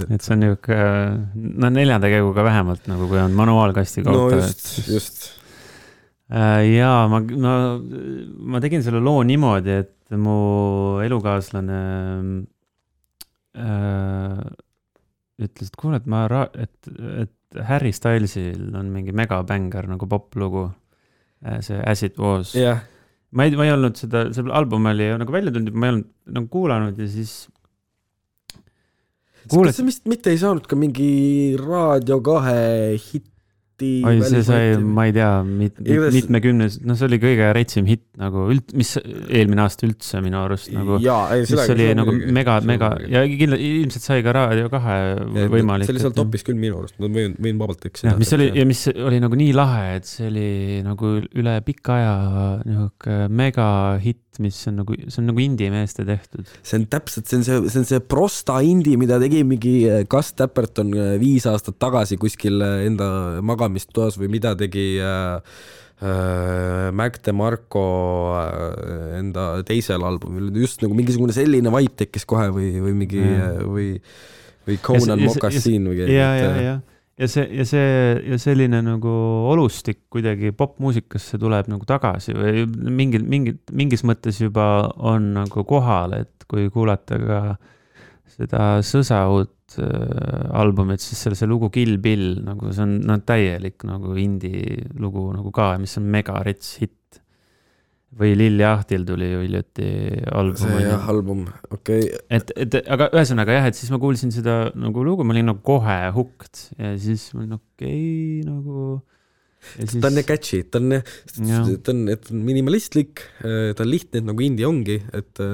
et see on niisugune, 4 käiguga vähemalt, nagu kui on manuaalkastiga auto. No just. Ja ma tegin selle loo niimoodi, et mu elukaaslane ütles, et kuule, et Harry Stylesil on mingi megabänger nagu poplugu, see As It Was. Yeah. Ma ei olnud see album oli nagu välja tulnud, ma ei olnud nagu kuulanud ja siis kas see mitte ei saanud ka mingi Raadio 2 hitti? Oi, see sai, ma ei tea, mitmekümnes, see oli kõige reitsim hitt nagu mis eelmine aasta üldse minu arust nagu, mis oli nagu mega ja ilmselt sai ka Raadio 2 võimalik. See oli seal topis küll minu arust, ma võin vabalt eksida. Mis oli nagu nii lahe, et see oli nagu üle pika aja mega hitt, mis on nagu indie meeste tehtud. See on täpselt, see on see prosta indie, mida tegi mingi Gus Dapperton 5 aastat tagasi kuskil enda magamistoas või mida tegi Mac DeMarco enda teisel albumil. Just nagu mingisugune selline vibe tekkis kohe või mingi või Conan Moccasin või ja selline nagu olustik kuidagi popmuusikasse tuleb nagu tagasi või mingis mõttes juba on nagu kohal, et kui kuulata ka seda Sõsaud albumit, siis see lugu Kill Bill, nagu see on täielik nagu indie lugu nagu ka, mis on mega rets hitt. Või Lilli Ahtil tuli ju hiljuti album. See album, okei. Aga ühesõnaga jah, et siis ma kuulsin seda nagu lugu, ma olin nagu kohe hooked ja siis ma olin okei, nagu... Siis... Ta on catchy, ta on minimalistlik, ta on lihtne, et nagu indie ongi, et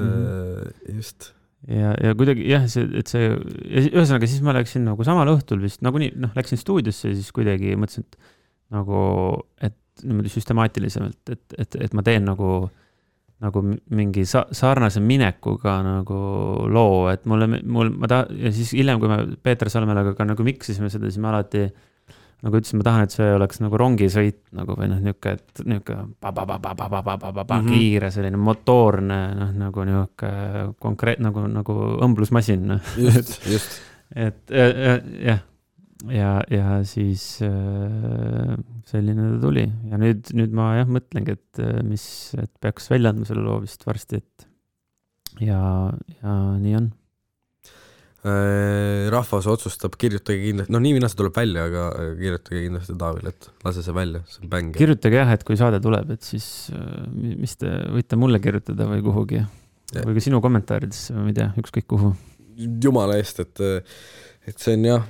just... Ja kuidagi jah, ühesõnaga siis ma läksin nagu samal õhtul vist, nagu nii, läksin stuudiosse ja siis kuidagi mõtlesin, et nagu, et niimoodi süstemaatilisemalt, et ma teen nagu mingi sarnase minekuga nagu loo, et ja siis hiljem, kui me Peeter Salmelaga ka nagu miksisime seda, siis me alati nagu ütlesin, ma tahan, et see oleks nagu rongisõit nagu või noh, niuke kiire selline motoorne, noh, nagu niuke konkreet, nagu õmblusmasin. Just. et jah. Ja siis selline ta tuli ja nüüd ma jah mõtlengi, et peaks välja andma selle loo vist varsti, et ja nii on. Rahvas otsustab, kirjutage kindlasti, no nii mina see tuleb välja, aga kirjutage kindlasti Taavile, et lase see välja, see on bäng. Kirjutage jah, et kui saade tuleb, et siis mis te võite mulle kirjutada või kuhugi või ka sinu kommentaaridesse või ma ei tea, ükskõik kuhu. Jumala eest, et see on jah,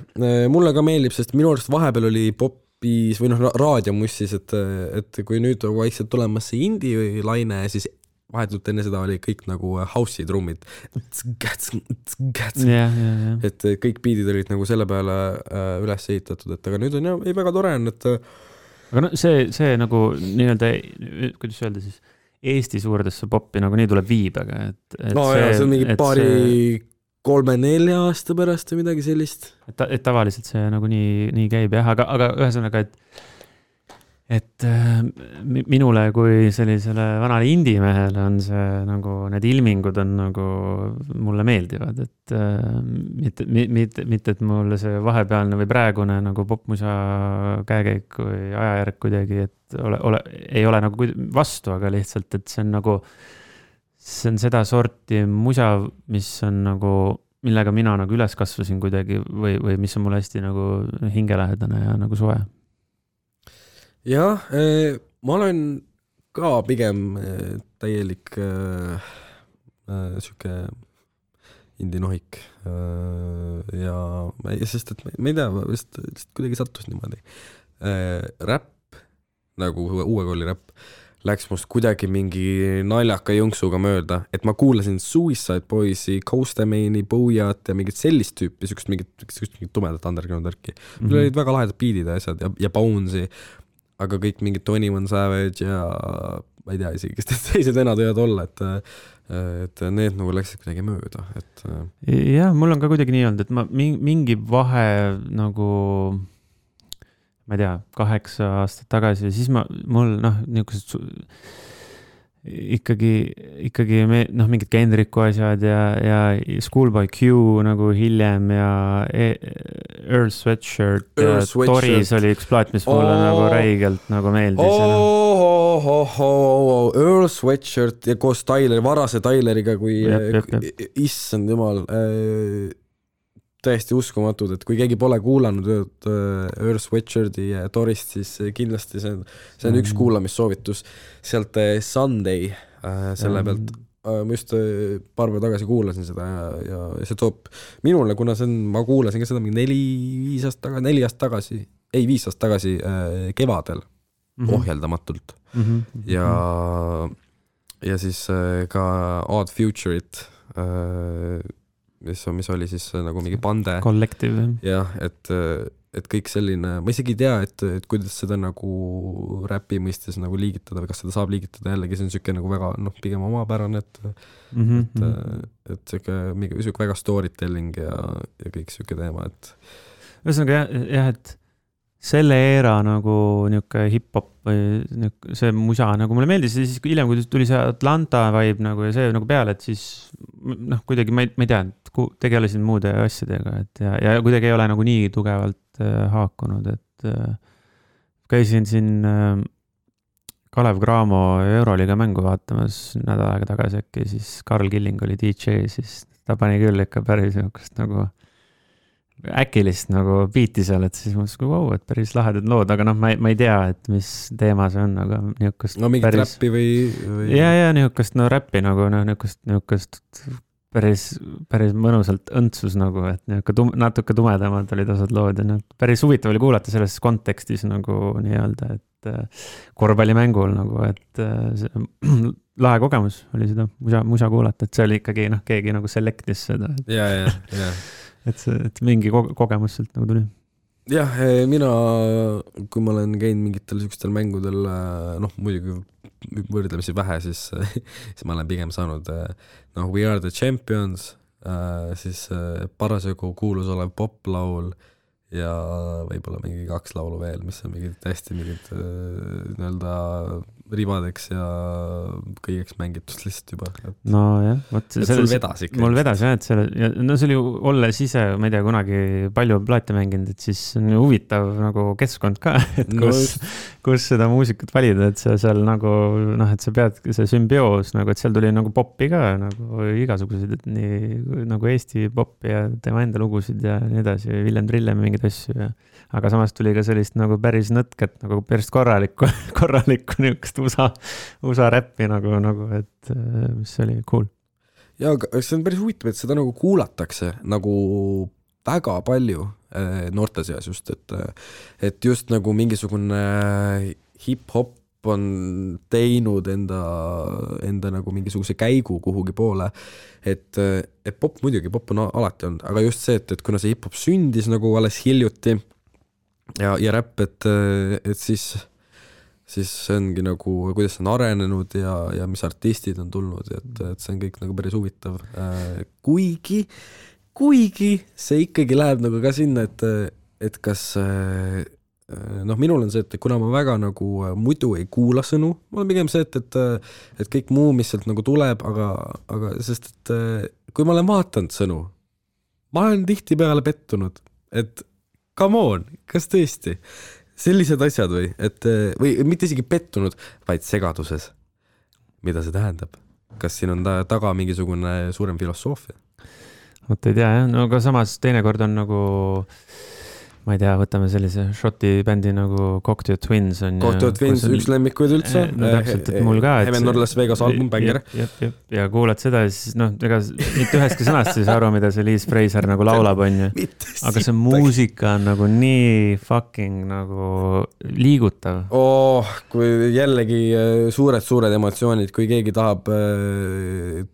mulle ka meeldib, sest minu arust vahepeal oli popis või noh, raadiomussis, et kui nüüd vaikselt tulemas see indie või laine, siis vahetult enne seda oli kõik nagu house'i trummid. Et kõik beatid olid nagu selle peale üles ehitatud, et aga nüüd on jah, väga tore on, et aga no see nagu nii-öelda, kuidas öelda siis, Eesti suurdesse poppi nagu nii tuleb viibega, et no see, see on mingi paari 3-4 aasta pärast või midagi sellist. Et tavaliselt see nagu nii käib jah, aga ühesõnaga, et minule kui sellisele vanale indie-mehele on see nagu, need ilmingud on nagu mulle meeldivad, et mitte, et mulle see vahepealne või praegune nagu popmusa käekäik või ajajärg kuidagi, et ei ole nagu vastu, aga lihtsalt, et see on nagu, see on seda sorti musa, mis on nagu, millega mina nagu üles kasvasin kuidagi või mis on mulle hästi nagu hingelähedane ja nagu soe. Jah, ma olen ka pigem täielik siuke indinohik ja sest, et ma ei tea, lihtsalt kuidagi sattus niimoodi. Räpp, nagu uue kooli räpp, läks must kuidagi mingi naljaka jõnksuga mööda, et ma kuulasin Suicide Boysi, Coastamane'i, Booyat ja mingit sellist tüüpi, siukest mingit tumedat underground värki. Mul olid väga lahedad beatid ja asjad ja Bones'i, aga kõik mingid 21 Savage ja ma ei tea isegi, kes teised venad võivad olla, et need nagu läksid kuidagi mööda. Jah, mul on ka kuidagi nii olnud, et ma mingi vahe nagu ma ei tea, 8 aastat tagasi ja siis mul niisugused ikkagi mingid Kendricku asjad ja Schoolboy Q nagu hiljem ja Earl Sweatshirt ja Toris oli üks plaat, mis mulle nagu räigelt nagu meeldis. Earl Sweatshirt ja koos varase Tyleriga, kui issand jumal, täiesti uskumatud, et kui keegi pole kuulanud Earl Sweatshirti ja Torist, siis kindlasti see on üks kuulamissoovitus sealt Sunday selle pealt. Ma just paar päeva tagasi kuulasin seda ja see toob minule, kuna ma kuulasin ka seda 4 aastat tagasi kevadel ohjeldamatult ja siis ka Odd Future'it mis oli siis nagu mingi bande. Collective. Jah, et kõik selline, ma isegi ei tea, et kuidas seda nagu räpi mõistes nagu liigitada või kas seda saab liigitada jällegi, see on siuke nagu väga, pigem omapärane, et siuke väga storytelling ja kõik siuke teema, et ühesõnaga jah, et selle eera nagu niuke hip-hop või see musa nagu mulle meeldis ja siis hiljem, kui tuli see Atlanta vibe nagu ja see nagu peale, et siis kuidagi ma ei tea, tegelesin muude asjadega, et ja kuidagi ei ole nagu nii tugevalt haakunud, et käisin siin Kalev Cramo Euroliiga mängu vaatamas nädal aega tagasi äkki, siis Karl Killing oli DJ, siis ta pani küll ikka päris niisugust nagu äkilist nagu biiti seal, et siis mõtlesin, wow, et päris lahedad lood, aga ma ei tea, et mis teema see on, aga niisugust mingit päris räppi või... Ja niisugust räppi nagu niisugust päris mõnusalt õntsus nagu, et natuke tumedamad olid osad lood ja päris huvitav oli kuulata selles kontekstis nagu nii-öelda, et korvpallimängul nagu, et lahe kogemus oli seda musa kuulata, et see oli ikkagi keegi nagu selectis seda. Ja. Et mingi kogemus sealt nagu tuli. Jah, mina, kui ma olen käinud mingitel sellistel mängudel, muidugi võrdlemisi vähe, siis ma olen pigem saanud We Are The Champions, siis parasjagu kuulus olev poplaul ja võib-olla mingi 2 laulu veel, mis on mingid hästi mingid nii-öelda ribadeks ja kõigeks mängitud lihtsalt juba. No jah, et sul vedas ikka. Mul vedas jah, et no see oli ju olles ise, ma ei tea, kunagi palju plaate mänginud, et siis on ju huvitav nagu keskkond ka, et kus seda muusikat valida, et sa seal nagu, noh, et sa pead see sümbioos nagu, et seal tuli nagu popi ka nagu igasuguseid, et nii nagu Eesti popi ja tema enda lugusid ja nii edasi, Villem Trillem mingeid asju ja aga samas tuli ka sellist nagu päris nõtket, nagu päris korralikku niisugust USA räppi nagu, et mis oli cool. Ja see on päris huvitav, et seda nagu kuulatakse nagu väga palju noorte seas just, et just nagu mingisugune hip-hop on teinud enda nagu mingisuguse käigu kuhugi poole, et pop muidugi, pop on alati olnud, aga just see, et kuna see hip-hop sündis nagu alles hiljuti ja räpp, et siis see ongi nagu, kuidas see on arenenud ja mis artistid on tulnud, et see on kõik nagu päris huvitav. Kuigi see ikkagi läheb nagu ka sinna, et kas noh, minul on see, et kuna ma väga nagu muidu ei kuula sõnu, mul on pigem see, et kõik muu, mis sealt nagu tuleb, aga sest, et kui ma olen vaatanud sõnu, ma olen tihti peale pettunud, et come on, kas tõesti? Sellised asjad või mitte isegi pettunud, vaid segaduses. Mida see tähendab? Kas siin on taga mingisugune suurem filosoofia? Võtta ei tea, jah. No aga samas teinekord on nagu, ma ei tea, võtame sellise šoti bändi nagu Cocteau Twins on. Cocteau Twins, üks lemmikuid üldse. No täpselt, et mul ka. Heaven or Las Vegas album, bänger. Ja kuulad seda ja siis, noh, ega mitte üheski sõnast siis aru, mida see Liz Fraser nagu laulab, on ju. Aga see muusika on nagu nii fucking nagu liigutav. Kui jällegi suured emotsioonid, kui keegi tahab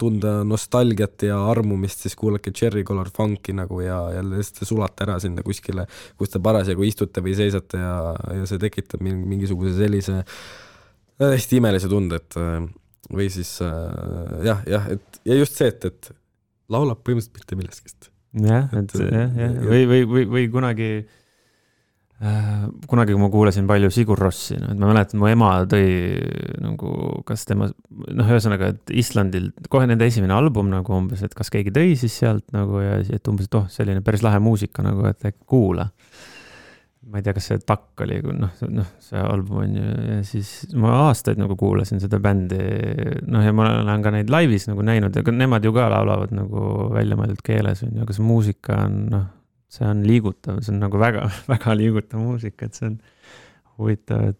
tunda nostalgiat ja armumist, siis kuulake Cherry Color Funky nagu ja jälle sulata ära sinna kuskile, kus te parasjagu istute või seisate ja see tekitab mingisuguse sellise hästi imelise tunde, et või siis ja just see, et laulab põhimõtteliselt mitte millestki. Jah, või kunagi kui ma kuulasin palju Sigur Rossi, et ma mäletan, mu ema tõi nagu, kas tema, noh, ühesõnaga, et Islandil kohe nende esimene album nagu umbes, et kas keegi tõi siis sealt nagu ja et umbes, et selline päris lahe muusika nagu, et kuula. Ma ei tea, kas see takk oli, see album on ju, ja siis ma aastaid nagu kuulasin seda bändi, ja ma olen ka neid laivis nagu näinud, aga nemad ju ka laulavad nagu väljamõeldud keeles, aga see muusika on, see on liigutav, see on nagu väga, väga liigutav muusika, et see on huvitav,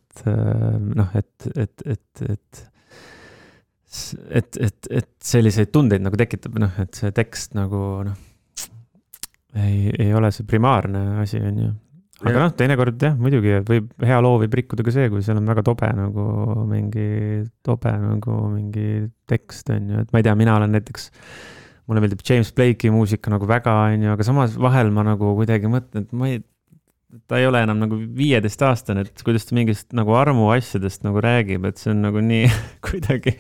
et selliseid tundeid nagu tekitab, et see tekst nagu, ei ole see primaarne asi, on ju. Aga teinekord jah, muidugi võib hea loo võib rikkuda ka see, kui seal on väga tobe mingi tekst, on ju, et ma ei tea, mina olen näiteks mulle meeldib James Blake'i muusika nagu väga, on ju, aga samas vahel ma nagu kuidagi mõtlen, et ta ei ole enam nagu 15-aastane, et kuidas ta mingist nagu armu asjadest nagu räägib, et see on nagu nii kuidagi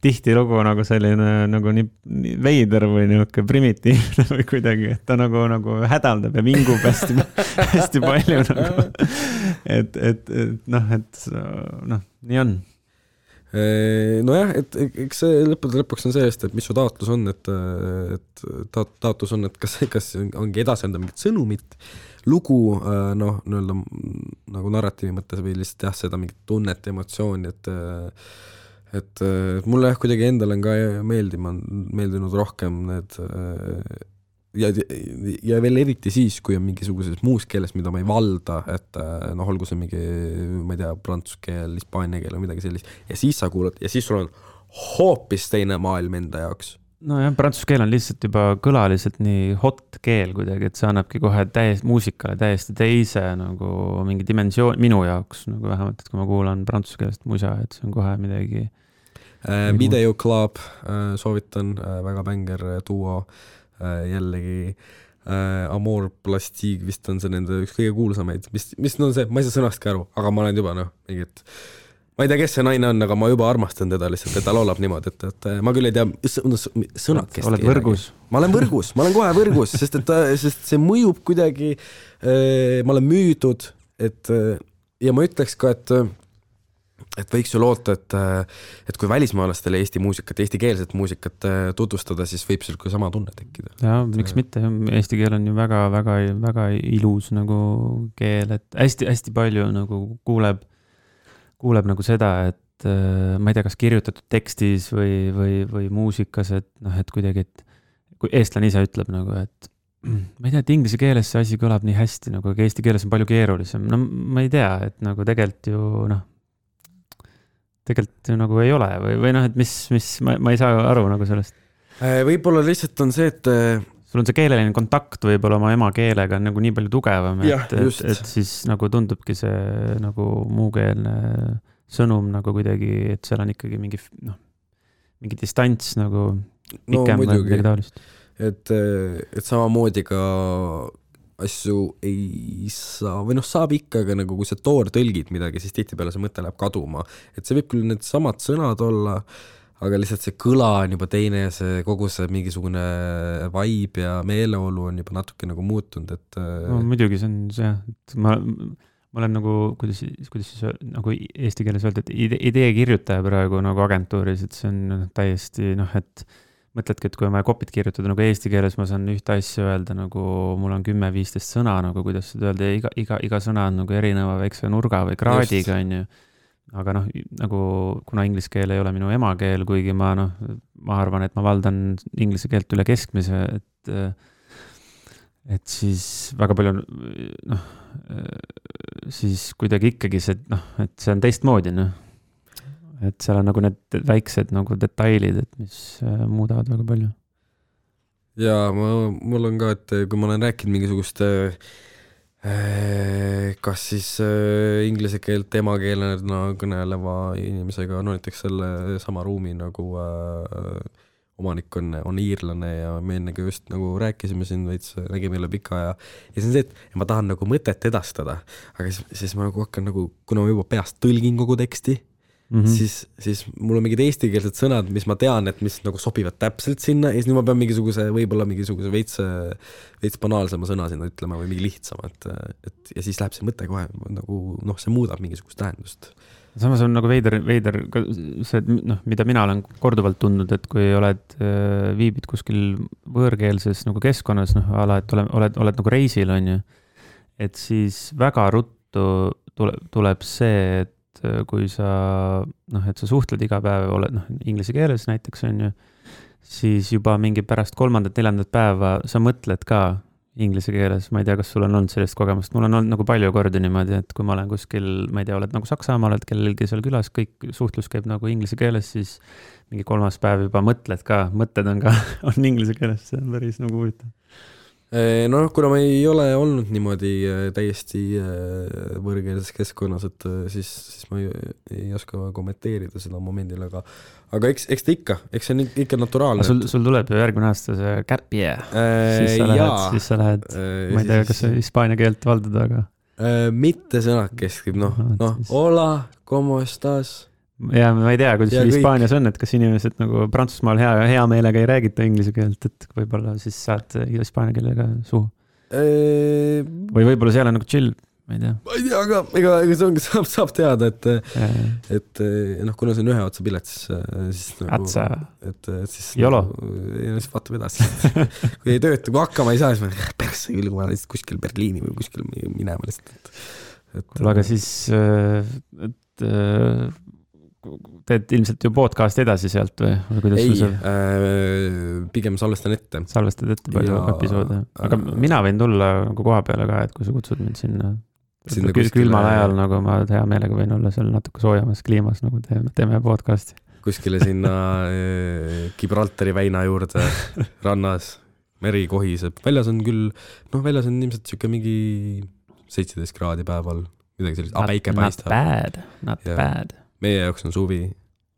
tihtilugu nagu selline nagu nii veider või niisugune primitiivne või kuidagi, et ta nagu hädaldab ja vingub hästi palju nagu. Nii on. Nojah, et eks see lõpuks on see eest, et mis su taotlus on, et taotlus on, et kas ongi edasenda mingit sõnumit, lugu, nagu narratiivi mõttes või lihtsalt seda mingit tunnet, emotsiooni, et mulle kuidagi endal on ka meeldinud rohkem need ja veel eriti siis, kui on mingisuguses muus keeles, mida ma ei valda, et olgu see mingi, ma ei tea, prantsuse keel, hispaania keel või midagi sellist, ja siis sa kuulad, ja siis sul on hoopis teine maailm enda jaoks. No jah, prantsuse keel on lihtsalt juba kõlaliselt nii hot keel kuidagi, et see annabki kohe muusikale täiesti teise nagu mingi dimensioon minu jaoks, nagu vähemalt, et kui ma kuulan prantsuse keelest musa, et see on kohe midagi. Video Club soovitan, väga bänger duo, jällegi Amor Plastique vist on see nende üks kõige kuulsamaid, mis on see, ma ei saa sõnastki aru, aga ma olen juba mingit ma ei tea, kes see naine on, aga ma juba armastan teda lihtsalt, et ta laulab niimoodi, et ma küll ei tea sõnakest. Oled võrgus? Ma olen võrgus, ma olen kohe võrgus, sest see mõjub kuidagi, ma olen müüdud, ja ma ütleks ka, et võiks ju loota, et kui välismaalastele Eesti muusikat, eestikeelset muusikat tutvustada, siis võib seal ka sama tunne tekkida. Ja, miks mitte? Eesti keel on ju väga, väga, väga ilus nagu keel, et hästi palju nagu kuuleb nagu seda, et ma ei tea, kas kirjutatud tekstis või muusikas, et et kuidagi, et kui eestlane ise ütleb nagu, et ma ei tea, et inglise keeles see asi kõlab nii hästi, nagu eesti keeles on palju keerulisem. No ma ei tea, et nagu tegelikult ju nagu ei ole või et mis ma ei saa aru nagu sellest. Võib-olla lihtsalt on see, et sul on see keeleline kontakt võib-olla oma emakeelega on nagu nii palju tugevam, et siis nagu tundubki see nagu muukeelne sõnum nagu kuidagi, et seal on ikkagi mingi distants nagu pikem või midagi taolist. Et samamoodi ka asju ei saa, või saab ikka, aga nagu kui sa tõlgid midagi, siis tihtipeale see mõte läheb kaduma. Et see võib küll need samad sõnad olla, aga lihtsalt see kõla on juba teine ja see kogu see mingisugune vibe ja meeleolu on juba natuke nagu muutunud, et no, muidugi see on see, et ma olen nagu, kuidas siis nagu eesti keeles öelda, et idee kirjutaja praegu nagu agentuuris, et see on täiesti et mõtledki, et kui ma kopit kirjutada nagu eesti keeles, ma saan ühte asja öelda, nagu mul on 10-15 sõna, nagu kuidas seda öelda, ja iga sõna on nagu erineva väikse nurga või kraadiga, on ju. Aga nagu kuna inglise keel ei ole minu emakeel, kuigi ma arvan, et ma valdan inglise keelt üle keskmise, et siis väga palju siis kuidagi ikkagi see, et see on teistmoodi, et seal on nagu need väiksed nagu detailid, et mis muudavad väga palju. Ja mul on ka, et kui ma olen rääkinud mingisugust kas siis inglise keelt emakeelena kõneleva inimesega, näiteks selle sama ruumi nagu omanik on iirlane ja me ennegi just nagu rääkisime siin veits, nägime üle pika ja see on see, et ma tahan nagu mõtet edastada, aga siis ma nagu hakkan nagu, kuna ma juba peast tõlgin kogu teksti, siis mul on mingid eestikeelsed sõnad, mis ma tean, et mis nagu sobivad täpselt sinna ja siis nüüd ma pean võib-olla mingisuguse veits banaalsema sõna sinna ütlema või mingi lihtsama, et ja siis läheb see mõte kohe nagu, see muudab mingisugust tähendust. Samas on nagu veider see, mida mina olen korduvalt tundnud, et kui viibid kuskil võõrkeelses nagu keskkonnas, ala, et oled nagu reisil, on ju, et siis väga ruttu tuleb see, et kui sa, et sa suhtled iga päev, oled inglise keeles näiteks, on ju, siis juba mingi pärast 3.-4. päeva sa mõtled ka inglise keeles, ma ei tea, kas sul on olnud sellist kogemust, mul on olnud nagu palju kordi niimoodi, et kui ma olen kuskil, ma ei tea, oled nagu Saksamaa, oled kellelgi seal külas, kõik suhtlus käib nagu inglise keeles, siis mingi 3. päev juba mõtled on inglise keeles, see on päris nagu huvitav. Kuna ma ei ole olnud niimoodi täiesti võõrkeelses keskkonnas, et siis ma ei oska kommenteerida seda momendil, aga eks ta ikka, eks see on ikka naturaalne. Sul tuleb ju järgmine aasta see gap year, siis sa lähed, ma ei tea, kas sa hispaania keelt valdad, aga mitte sõnakeskib, hola, como estás? Ja ma ei tea, kuidas Hispaanias on, et kas inimesed nagu Prantsusmaal hea meelega ei räägita inglise keelt, et võib-olla siis saad hispaania keelega suhu. Või võib-olla seal on nagu chill, ma ei tea. Ma ei tea, aga ega see ongi, saab teada, et kuna see on ühe otsa pilet, siis Atsa. Siis Jolo. Siis vaatame edasi. Kui ei tööta, kui hakkama ei saa, siis ma persse küll, kui ma olen kuskil Berliini või kuskil minema lihtsalt. Aga siis teed ilmselt ju podcast edasi sealt või kuidas ei, pigem salvestan ette. Salvestad ette palju episoode. Aga mina võin tulla nagu koha peale ka, et kui sa kutsud mind sinna külmal ajal, nagu ma hea meelega võin olla seal natuke soojamas kliimas, nagu teeme podcasti. Kuskile sinna Gibraltari väina juurde rannas, meri kohiseb. Väljas on küll, väljas on ilmselt siuke mingi 17 kraadi päeval, midagi sellist, päike paistab. Not bad. Meie jaoks on suvi.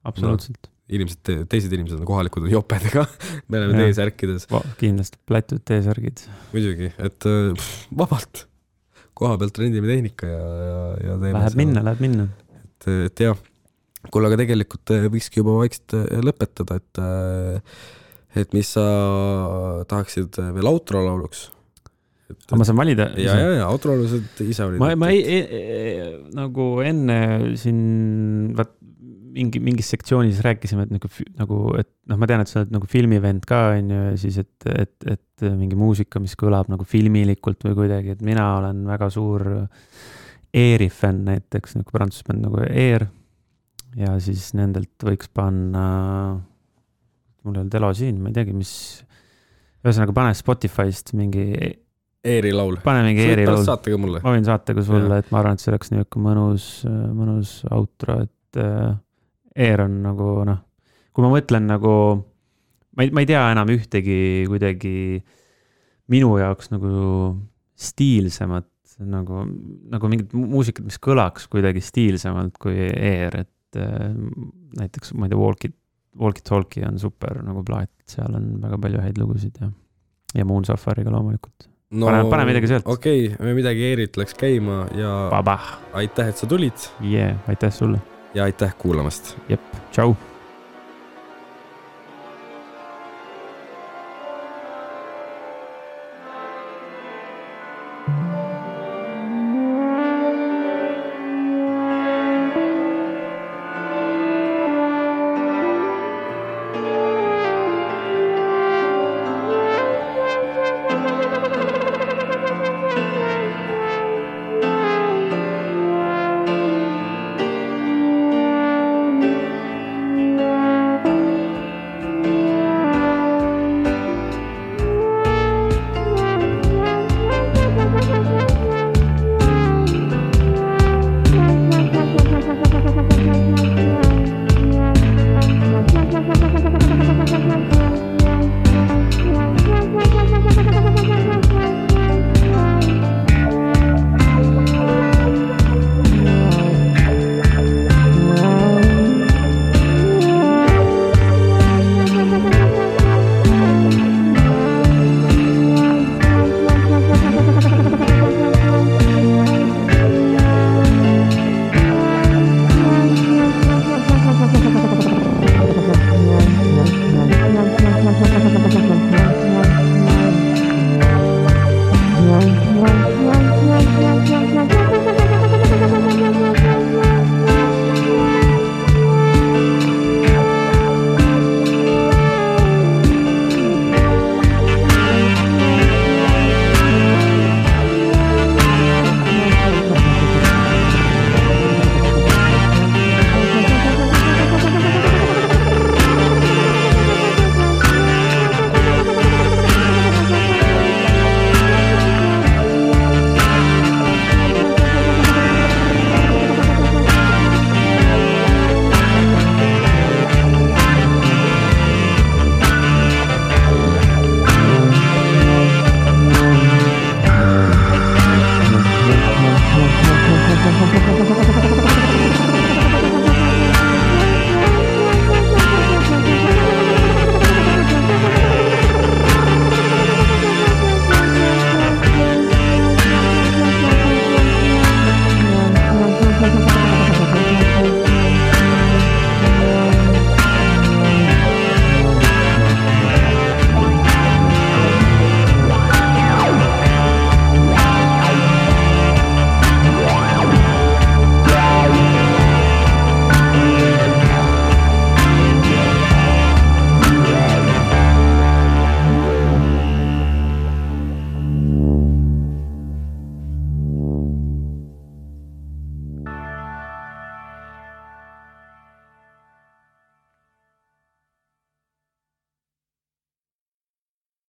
Absoluutselt. Teised inimesed on kohalikud, on jopedega. Me oleme T-särkides. Kindlasti plätud T-särgid. Muidugi, et vabalt koha pealt rendime tehnika ja teeme läheb minna. Et jah, kuule, aga tegelikult võikski juba vaikselt lõpetada, et mis sa tahaksid veel outro lauluks? Aga ma saan valida? Ja outro laulusid ise olid. Ma nagu enne siin mingis sektsioonis rääkisime, et et ma tean, et sa oled nagu filmivend ka, ja siis, et mingi muusika, mis kõlab nagu filmilikult või kuidagi, et mina olen väga suur Airi fänn näiteks, nagu prantsusbänd nagu Air, ja siis nendelt võiks panna, mul ei olnud elo siin, ma ei teagi, mis, ühesõnaga pane Spotify'st mingi Airi laul. Pane mingi Airi laul. Saate ka mulle. Ma võin saate ka sulle, et ma arvan, et see oleks niisugune mõnus outro, et Air on nagu, kui ma mõtlen nagu, ma ei tea enam ühtegi kuidagi minu jaoks nagu stiilsemat, nagu mingit muusikat, mis kõlaks kuidagi stiilsemalt kui Air, et näiteks, ma ei tea, Walkie Talkie on super nagu plaat, seal on väga palju häid lugusid ja Moon Safariga loomulikult. Pane midagi sealt. Okei, midagi Airit läks käima ja Baba. Aitäh, et sa tulid. Aitäh sulle. Ja aitäh kuulamast. Jep, tšau.